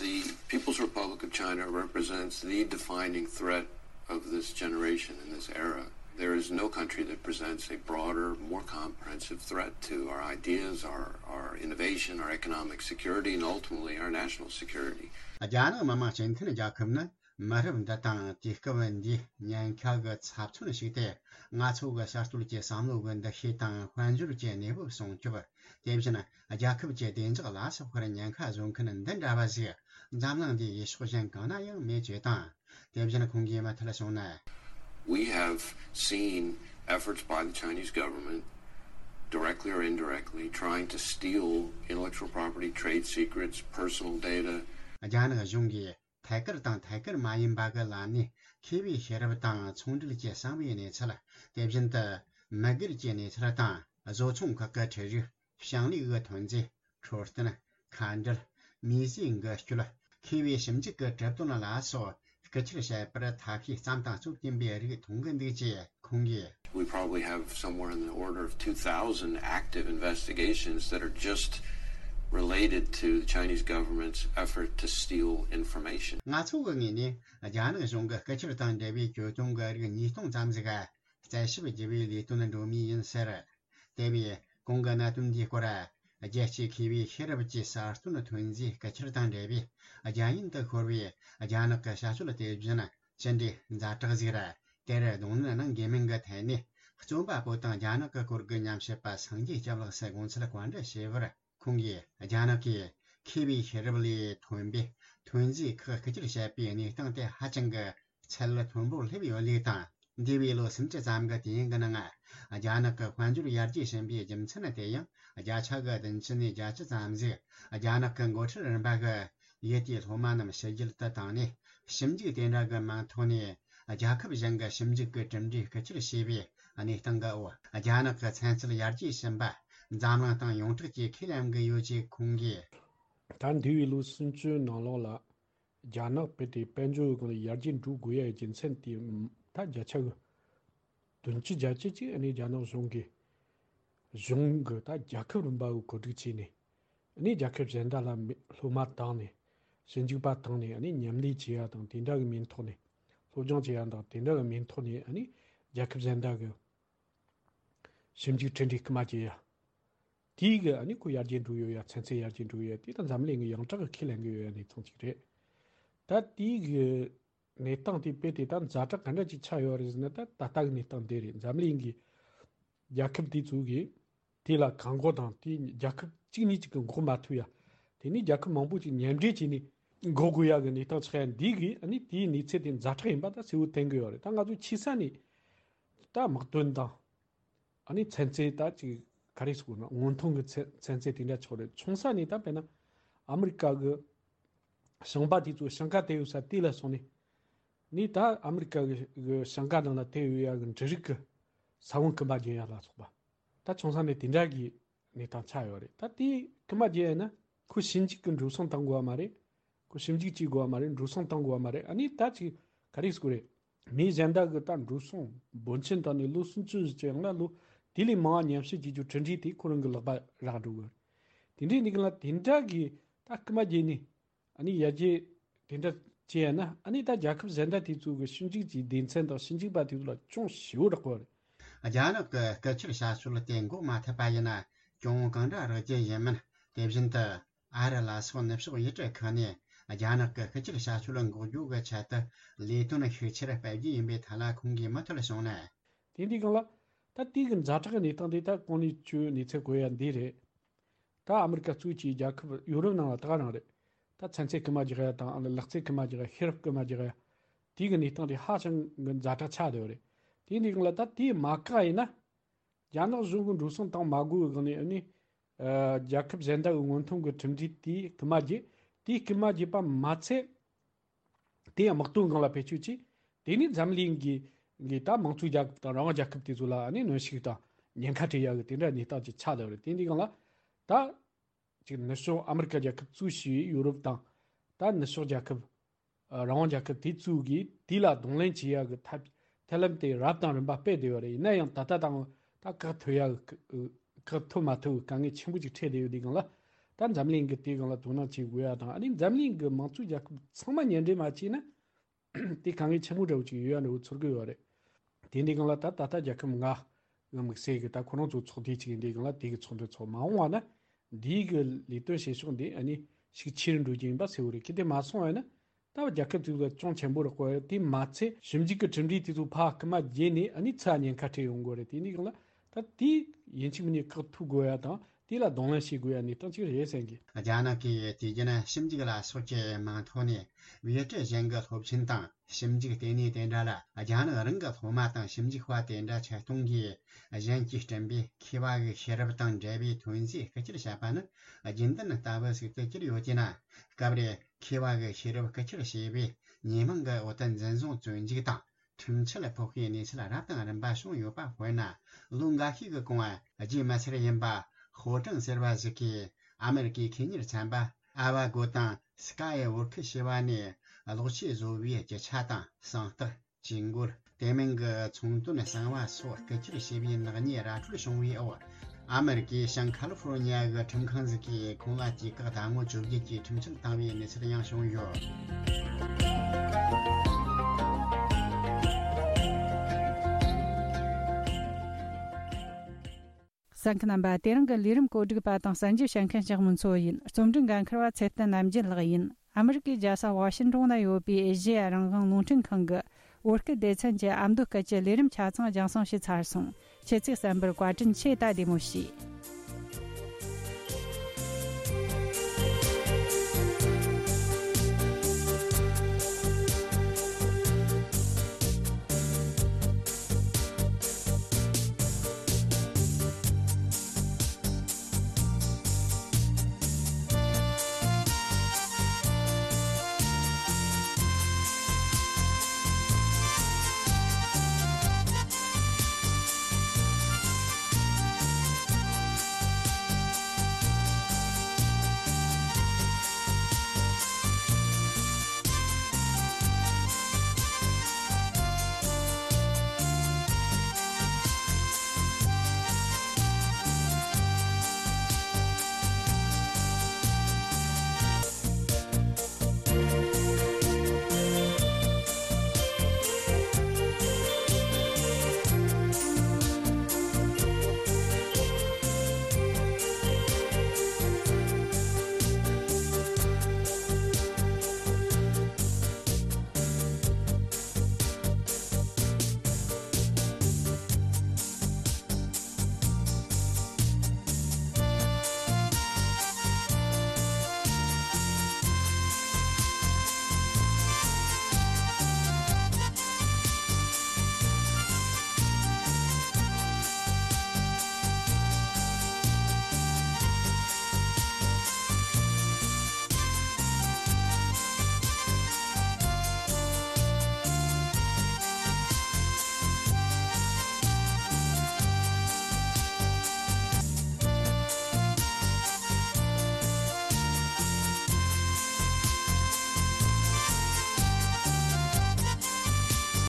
The People's Republic of China represents the defining threat of this generation and this era. There is no country that presents a broader, more comprehensive threat to our ideas, our, our innovation, our economic security, and ultimately our national security. རྒྱ་ནག་མི་དམངས་སྤྱི་མཐུན་རྒྱལ་ཁབ་ནི་མི་རབས་འདི་དང་དུས་སྐབས་འདིའི་ཉེན་ཁ་གི་ཚབ་མཚོན་ཞིག་སྟེ། ང་ཚོ་གི་གསར་གཏོད་ཀྱི་བསམ་བློ་གི་འདུ་ཤེས་དང་དཔལ་འབྱོར་གྱི་གནས་བབ་སྲུང་སྐྱོབ། དེ་བཞིན་རྒྱལ་ཁབ་ཀྱི་བདེ་འཇགས་ལ་སོགས་པར་ཉེན་ཁ་བཟོ་མཁན་འདི་འདྲ་བ་ཞིག་འཛམ་གླིང་འདིའི་ཡུལ་ཕྱོགས་གཞན་གང་ན་ཡང་མེད་ཅེས་དང་། དེ་བཞིན་ཁོང་གིས་མུ་མཐུད་གསུངས་ན། We have seen efforts by the Chinese government, directly or indirectly, trying to steal intellectual property, trade secrets, personal data. རྒྱ་ནག་གཞུང་གིས་ཐད་ཀར་དང་ཐད་ཀར་མ་ཡིན་པ་གི་ལམ་ནས་མཁས་པའི་ཤེས་རབ་དང་ཚོང་འབྲེལ་གྱི་གསང་བའི་གནས་ཚུལ། དེ་བཞིན་དུ་མི་སྒེར་གྱི་གནས་ཚུལ་དང་། བཟོ་ཚོང་ཁག་གི་ཁྲལ་རིགས། ཞིང་ལས་ཀྱི་ཐོན་རྫས། འཕྲོད་བསྟེན། ཁ་འབྲལ། མིས་བཟོས་འགུལ་སྐྱོད། མཁས་པའི་ཞིབ་འཇུག་གི་གྲུབ་དོན་ལ་སོགས་རྐུ་འཁྱེར་བྱས་པར་ཐབས་ཤེས་བརྩམས་དང་རྩོད་ཀྱིན་པའི་རིགས་མཐོང་གི་འདུག་ཅེས་ཁོང་གིས། We probably have somewhere in the order of two thousand active investigations that are just related to the Chinese government's effort to steal information. ང་ཚོ་གི་ངོས་ནས་རྒྱ་ནག་གཞུང་གི་རྐུ་འཁྱེར་དང་འབྲེལ་བའི་གྱོད་དོན་གྱི་རིགས་ཉིས་སྟོང་ཙམ་ཞིག་རྩད་ཞིབ་བགྱི་བའི་ལས་དོན་འགྲོ་མུས་ཡིན་ཟེར། དེ་བས་གོང་གི་གནད་དོན་འདིའི་སྐོར། རྒྱལ་སྤྱིའི་མཁས་པའི་ཤེས་རབ་ཀྱི་གསར་གཏོད་ཐོན་རྫས་རྐུ་འཁྱེར་དང་འབྲེལ་བའི་རྒྱ་ཡན་དུ་ཤོར་བའི་རྒྱ་ནག་གི་བྱ་སྤྱོད་དེ་བཞིན་ཅི་འདྲའི་ཛ་དྲག་ཟིག་ར། དེར་གདོང་ལེན་གནང་དགོས་མིན་གྱི་ཐད་ནས། རྩོམ་པ་པོ་དང་རྒྱ་ནག་གི་སྐོར་གྱི་ཉམས་ཞིབ་པ་སངས་རྒྱས་སྐྱབས་ལགས་སུ་དགོངས་ཚུལ་བཀའ་འདྲི་ཞུས་པར། ཁོང་གིས། རྒྱ་ནག་གིས་མཁས་པའི་ཤེས་རབ་ལས་ཐོན་པའི་ཐོན་རྫས་ཁག་རྐུ་འཁྱེར་བྱས་པའི་གནས་སྟངས་དེ་ཧ་ཅང་གི་ཚད་མཐོན་པོར་སླེབས་ཡོད་ལུགས་དང་། འདས་པའི་ལོ་སུམ་ཅུ་ཙམ་གྱི་དུས་ཡུན་གྱི་ནང་། རྒྱ་ནག་གི་དཔལ་འབྱོར་ཡར་རྒྱས་ཕྱིན་པའི་རྒྱུ་མཚན་དེ་ཡང་བརྒྱ་ཆ་གི་བདུན་ཅུ་ནས་བརྒྱད་ཅུ་ཙམ་ཞིག་རྒྱ་ནག་གི་འགོ་ཁྲིད་རིམ་པ་གི་ཡུལ་དེའི་སློབ་མ་རྣམས་ཕྱི་རྒྱལ་དུ་བཏང་ནས། ཞིབ་འཇུག་དེ་འདྲ་གི་མིང་ཐོག་ནས་རྒྱལ་ཁབ་གཞན་གྱི་ཞིབ་འཇུག་གི་གྲུབ་འབྲས་རྐུ་འཁྱེར་བྱས་པའི་གནས་སྟངས་ཀྱི་འོག་རྒྱ་ནག་གི་ཚན་རྩལ་ཡར་རྒྱས་ཕྱིན་པ་འཛམ་གླིང་སྟེང་ཡོངས་གྲགས་ཀྱིས་ཁས་ལེན་གྱི་ཡོད་ཅེས་ཁོང་གིས། ད་འདས་པའི་ལོ་སུམ་ཅུའི་ནང་ལོགས་ལ། རྒྱ་ནག་དཔེ་དེ་དཔལ་འབྱོར་གྱི་སྒང་ལ་ཡར་རྒྱས་འགྲོ་དགོས་ཡ་རྒྱུ་མཚན་དེ། ད་བརྒྱ་ཆ་གི་བདུན་ཅུ་བརྒྱད་ཅུ་ཅིག་ཨ་ནི་རྒྱ་ནག་གཞུང་གིས། གཞུང་གི་ད་རྒྱལ་ཁབ་རིམ་པ་གི་གོ་སྒྲིག་བྱས་ནས། ཨ་ནི་རྒྱལ་ཁབ་གཞན་དག་ལ་མི་སློབ་མ་བཏང་ནས། ཞིབ་འཇུག་པ་བཏང་ནས་ཨ་ནི་མཉམ་ལས་བྱེད་ཡ་དང་དེ་འདྲ་གི་མིང་ཐོག་ནས། སློབ་སྦྱོང་བྱེད་ཡ་དང་དེ་འདྲ་གི་མིང་ཐོག་ནས་ཨ་ནི་རྒྱལ་ཁབ་གཞན་དག་གི་ཞིབ་འཇུག་འཕྲིན་སྦྲེལ་སྐུལ་མ་བྱེད་ཡ། དེའི་གི་ཨ་ནི་ཁོ་ཡར་རྒྱས་འགྲོ་ཡོད་ཡ། ཚན་རྩལ་ཡར་རྒྱས་འགྲོ་ཡོད་ཡ། དེ་ད་འཛམ་གླིང་གི་ཡོངས་གྲགས་གི་ཁས་ལེན་གི་ཡོད་ཡ་གནས་སྟངས་ཅིག་རེད། ད་དེའི་གི་གནས་སྟངས་དེ་དཔེ་དེ་ད་ཛ་དྲག་ག་འདྲ་ཅིག་ཆགས་ཡོད་རེད་ཟེར་ན། ད་ད་ལྟ་གི་གནས་སྟངས་དེ་རེད། འཛམ་གླིང་གི་རྒྱལ་ཁབ་དེ་ཚོ་གི་དེ་ལ་གང་མགོ་དང་དེ་རྒྱལ་ཁབ་གཅིག་གཉིས་གཅིག་གི་མགོ་མ་ཐུག་ཡ། དེ་ནི་རྒྱལ་ཁབ་མང་པོ་ཅིག་མཉམ་འབྲེལ་བྱས་ནས་འགོག་དགོས་ཡ་གི་གནས་སྟངས་ཆགས་ཡ། འདི་གི་ཨ་ནི་དེའི་གནས་ཚུལ་དེ་ཛ་དྲག་ཡིན་པ་ད་གསལ་བོ་བསྟན་གི་ཡོད་རེད། ད་ང་ཚོ་ཆེ་ས་ནས་ད་དམག་དོན་དང་། ཨ་ནི་ཚན་རྩལ་ད་ཅིག་ ག་རེ་ཟེར་དགོས་ན། སྔོན་ཐོན་གྱི་ཚན་ཚན་རྩལ་དེ་འདྲ་ཆགས་རེད། ཆུང་ས་ནས་ད་དཔེར་ན་ཨ་མི་རི་ཀ་གི་ཞིང་པ་དེ་ཚོ་ཞིང་ཁ་དེད་ཡོད་ས་དེ་ལ་སོང་ནས། ནས་ད་ཨ་མི་རི་ཀ་གི་གི་ཞིང་ཁ་ནང་ལ་དེད་ཡོད་ཡ་གི་འབྲུ་རིགས་ཀྱི་ས་བོན་རྐུན་མ་རྒྱག་ཡ་ལ་སོགས་པ། ད་ཆུང་ས་ནས་དེ་འདྲ་གི་གནས་སྟངས་ཆགས་ཡོད་རེད། ད་དེ་རྐུན་མ་རྒྱག་ཡ་ན་ཁོ་ཞིབ་འཇུག་གི་འགྲོ་སོང་བཏང་དགོས་པ་མ་རེད། ཁོ་ཞིབ་འཇུག་བྱེད་དགོས་པ་མ་རེད། འགྲོ་སོང་བཏང་དགོས་པ་མ་རེད། ཨ་ནི་ད་ཅིག་ག་རེ་ཟེར་དགོས་རེད། མི་གཞན་དག་གི་ད་འགྲོ་སོང་འབོར་ཆེན་བཏང་ནས་ལོ་སུམ་ཅུ་ཙམ་ཡང་ན་ལོ་དེ་ལས་མང་བ་ཉམས་ཞིབ་བྱེད་རྒྱུ་གྲུབ་འབྲས་དེ་ཁོ་རང་གི་ལག་པ་རག་འགྲོ་གི་རེད། དེ་འདྲའི་ནི་གི་ལ་དེ་འདྲ་གི་ད་རྐུན་མ་རྒྱག་ནི། ཨ་ནི་ཡར་རྒྱས་དེ་འདྲ་བྱས་ཡ་ན། ཨ་ནི་ད་རྒྱལ་ཁབ་གཞན་དག་དེ་ཚོ་གི་ཞིབ་འཇུག་གི་སྡེ་ཚན་དང་ཞིབ་འཇུག་པ་དེ་ཚོ་ལ་ཅུང་ཞེ་པོ་རག་གི་རེད། རྒྱ་ནག་གི་སྐད་ཆར་བྱ་སྤྱོད་དེ་འགོག་མ་ཐུབ་པ་ཡིན་ན་གྱོང་གང་འདྲ་རག་རྒྱུ་ཡིན་མིན། དེ་བཞིན་དུ་ཨ་རི་ལ་སོགས་ནུབ་ཕྱོགས་ཡུལ་གྲུ་ཁག་ནས་རྒྱ་ནག་གི་སྐད་ཆར་བྱ་སྤྱོད་འགོག་རྒྱུ་གི་ཆེད་དུ་ལས་དོན་ཤུགས་ཆེར་སྤེལ་རྒྱུ་ཡིན་པའི་ཐད་ལ་ཁོང་གིས་མུ་མཐུད་གསུངས་ན། དེ་འདི་སྒང་ལ་ད་དེ་གི་ཛ་དྲག་གི་གནས་སྟངས་དེ་ད་གོང་ནས་ཁྱོད་གནས་ཚུལ་གོ་ཡ་འདི་རེད། ད་ཨ་མི་རི་ཀ་གཙོས་ཀྱི་རྒྱལ་ཁབ་ཡོ་རོབ་ནང་ལ་ད་ག་རང་རེད། ད་ཚན་རྩལ་རྐུན་མ་རྒྱག་ཡ་དང་། ཨ་ནི་ལག་རྩལ་རྐུན་མ་རྒྱག་ཡ། ཤེས་རབ་རྐུན་མ་རྒྱག་ཡ། དེ་གི་གནས་སྟངས་དེ་ཧ་ཅང་གི་ཛ་དྲག་ཆགས་བསྡད་ཡོད་རེད། དེ་འདི་སྒང་ལ་ད་དེ་མ་བཀག་ཡིན་ན། རྒྱ་ནག་གཞུང་གི་འགྲོ་སོང་བཏང་མ་དགོས་པའི་སྒང་ནས། ཨ་ནི་ཨ་རྒྱལ་ཁབ་གཞན་དག་གི་སྔོན་ཐོན་གྱི་གྲུབ་འབྲས་དེ་རྐུན་མ་རྒྱག་དེ་རྐུན་མ་རྒྱག་པ་མ་ཚད། དེ་ཡང་དམག་དོན་སྒང་ལ་བེད་སྤྱོད་བྱས། དེ་ནས་འཛམ་གླིང་གི་གི་ད་དམངས་གཙོའི་རྒྱལ་ཁབ་དང་རང་དབང་རྒྱལ་ཁབ་དེ་ཚོ་ལ་ཨ་ནི་གནོན་ཤུགས་དང་ཉེན་ཁ་སྤྲད་ཡ་གི་དེ་འདྲ་གནས་སྟངས་ཅིག་ཆགས་བསྡད་ཡོད་རེད། དེ་འདི་སྒང་ལ་ད་ཅིག་ནུབ་ཕྱོགས་ཨ་མི་རི་ཀ་རྒྱལ་ཁབ་གཙོས་བྱས་ཡོ་རོབ་དང་། ད་ནུབ་ཕྱོགས་རྒྱལ་ཁབ། ཨ་རང་དབང་རྒྱལ་ཁབ་དེ་ཚོ་གིས་དེ་ལ་གདོང་ལེན་བྱེད་ཡ་གི་ཐབས་ཐབས་ལམ་དེ་རབ་དང་རིམ་པ་སྤེལ་བསྡད་ཡོད་རེད། ཡིན་ན་ཡང་ད་ལྟ་དང་ད་བཀག་ཐུབ་ཡ་གི་བཀག་ཐུབ་མ་ཐུབ་གི་དཀའ་ངལ་ཆེན་པོ་ཅིག་འཕྲད་བསྡད་ཡོད་དུས་སྒང་ལ། ད་འཛམ་གླིང་གིས་དེའི་སྒང་ལ་དོ་སྣང་བྱེད་དགོས་ཡ་དང་། ཨ་ནི་འཛམ་གླིང་གི་དམངས་གཙོའི་རྒྱལ་ཁབ་ཚང་མ་མཉམ་འབྲེལ་མ་བྱས་ན། དེ་དཀའ་ངལ་ཆེན་པོ་འདྲ་བོ་ཅིག་ཡོད་ཡ་འདྲ་བོ་ཚོར་གི་ཡོད་རེད། དེ་འདི་སྒང་ལ་ད་ད་ལྟ་རྒྱལ་ཁབ་ལྔ་གི་དམིགས་བསལ་གི་ད་ཁོ་རང་ཚོ་ཚོགས་སྡེ་ཅིག་ཡིན་དུས་སྒང་ལ། དེ་གི་ཚོགས་འདུ་ཚོགས་མ་འོངས་པ་ན་འདིའི་གི་ལས་དོན་བྱེད་ཕྱོགས་འདི་ཨ་ནི་ཤུགས་ཆེ་རུ་འགྲོ་རྒྱུ་ཡིན་པ་གསལ་བོ་རེད། གལ་ཏེ་མ་སོང་བ་ཡིན་ན། ད་རྒྱལ་ཁབ་དེ་ཚོ་ཅུང་ཆེན་པོ་རག་གི་ཡོད་རེད། དེ་མ་ཚད་ཞིབ་འཇུག་གི་གྲུབ་འབྲས་དེ་ཚོ་ཕར་རྐུན་མ་བརྒྱབ་ནས་ཨ་ནི་ཚུར་ཉེན་ཁ་འཕྲད་ཡོང་གི་ཡོད་རེད། དེ་འདི་སྒང་ལ་ད་དེ་ཡིན་གཅིག་མིན་གཉིས་བཀག་ཐུབ་དགོས་ཡ་དང་། དེ་ལ་གདོང་ལེན་བྱེད་དགོས་ཡ་གནས་སྟངས་ཅིག་རེད་བསམ་གི། རྒྱ་ནག་གིས་དུས་རྒྱུན་ཞིབ་འཇུག་ལ་སོགས་ཀྱི་མིང་ཐོག་ནས་བེད་སྤྱོད་གཞན་གྱི་སློབ་ཆེན་དང་ཞིབ་འཇུག་ལྟེ་གནས་དེ་འདྲ་ལ་རྒྱ་ནག་རང་གི་སློབ་མ་དང་ཞིབ་འཇུག་པ་དེ་འདྲ་ཆེད་གཏོང་གིས་གཞན་གྱིས་བསྐྲུན་པའི་མཁས་པ་གི་ཤེས་རབ་དང་འབྲེལ་བའི་ཐོན་རྫས་རྐུ་འཁྱེར་བྱས་པ་ནི་རྒྱུན་ལྡན་ལྟ་བུ་ཞིག་ཏུ་གྱུར་ཡོད་ཅེ་ན། སྐབས་རེ་མཁས་པ་གི་ཤེས་རབ་རྐུ་འཁྱེར་བྱས་པའི་ཉེས་མིང་གི་འོག་ཏུ་འཛིན་བཟུང་བཙོན་འཇུག་དང་ཁྲིམས་ཆད་ཕོག་པའི་གནས་ཚུལ་རབ་དང་རིམ་པ་བྱུང་ཡོད་པ། དཔེར་ན་ལོ་འགའ་ཤས་ཀྱི་གོང་བ་རྒྱུས་མི་ཚར་ཡིན་པ་ཧོ་ཀྲང་ཟེར་བ་ཞིག་གིས་ཨ་མེ་རི་ཀའི་ཁེ་གཉེར་ཚན་པ་ཨ་བ་གོ་དང་སི་ཀ་ཡི་བོར་ཁི་ཞེས་པ་ནས་གློག་ཆས་བཟོ་བའི་རྒྱུ་ཆ་དང་གསང་རྟགས། ཇུས་འགོད། དེ་མིན་གྱི་ཚོང་དོན་གསང་བ་སོགས་རྐུ་འཁྱེར་བྱས་པའི་ནག་ཉེས་ར་འཕྲོད་བྱུང་བའི་འོག་ཨ་མེ་རི་ཀའི་ཤང་ཁ་ལི་ཧྥོ་རོ་ཉི་ཡ་གི་ཁྲིམས་ཁང་ཞིག་གིས་ཁོང་ལ་དུས་བཀག་ཟླ་ངོ་བཅོ་བརྒྱད་ཀྱི་ཁྲིམས་ཆད་བཏང་བའི་གནས་ཚུལ་ཡང་བྱུང་ཡོད། གསན་མཁན་རྣམ་པ། དེ་རིང་གི་ལས་རིམ་གོ་སྒྲིག་པ་དང་གསན་རྒྱུ་བྱེད་མཁན་ཞག་མུན་མཚོ་ཡིན། རྩོམ་སྒྲིག་འགན་འཁུར་བ་ཚེ་བརྟན་རྣམ་རྒྱལ་ལགས་ཡིན། ཨ་མི་རི་ཀའི་རྒྱལ་ས་ཝ་ཤིན་ཏོན་ན་ཡོད་པའི་ཨེ་ཤེ་ཡ་རང་དབང་རླུང་འཕྲིན་ཁང་གི་བོད་སྐད་སྡེ་ཚན་གྱི་ཨ་མདོ་སྐད་ཀྱི་ལས་རིམ་ཆ་ཚང་རྒྱང་སྲིང་བྱས་ཚར་སོང་། ཁྱེད་ཚོས་གསན་པར་བཀའ་དྲིན་ཆེ། ད་བདེ་མོ་བྱོས།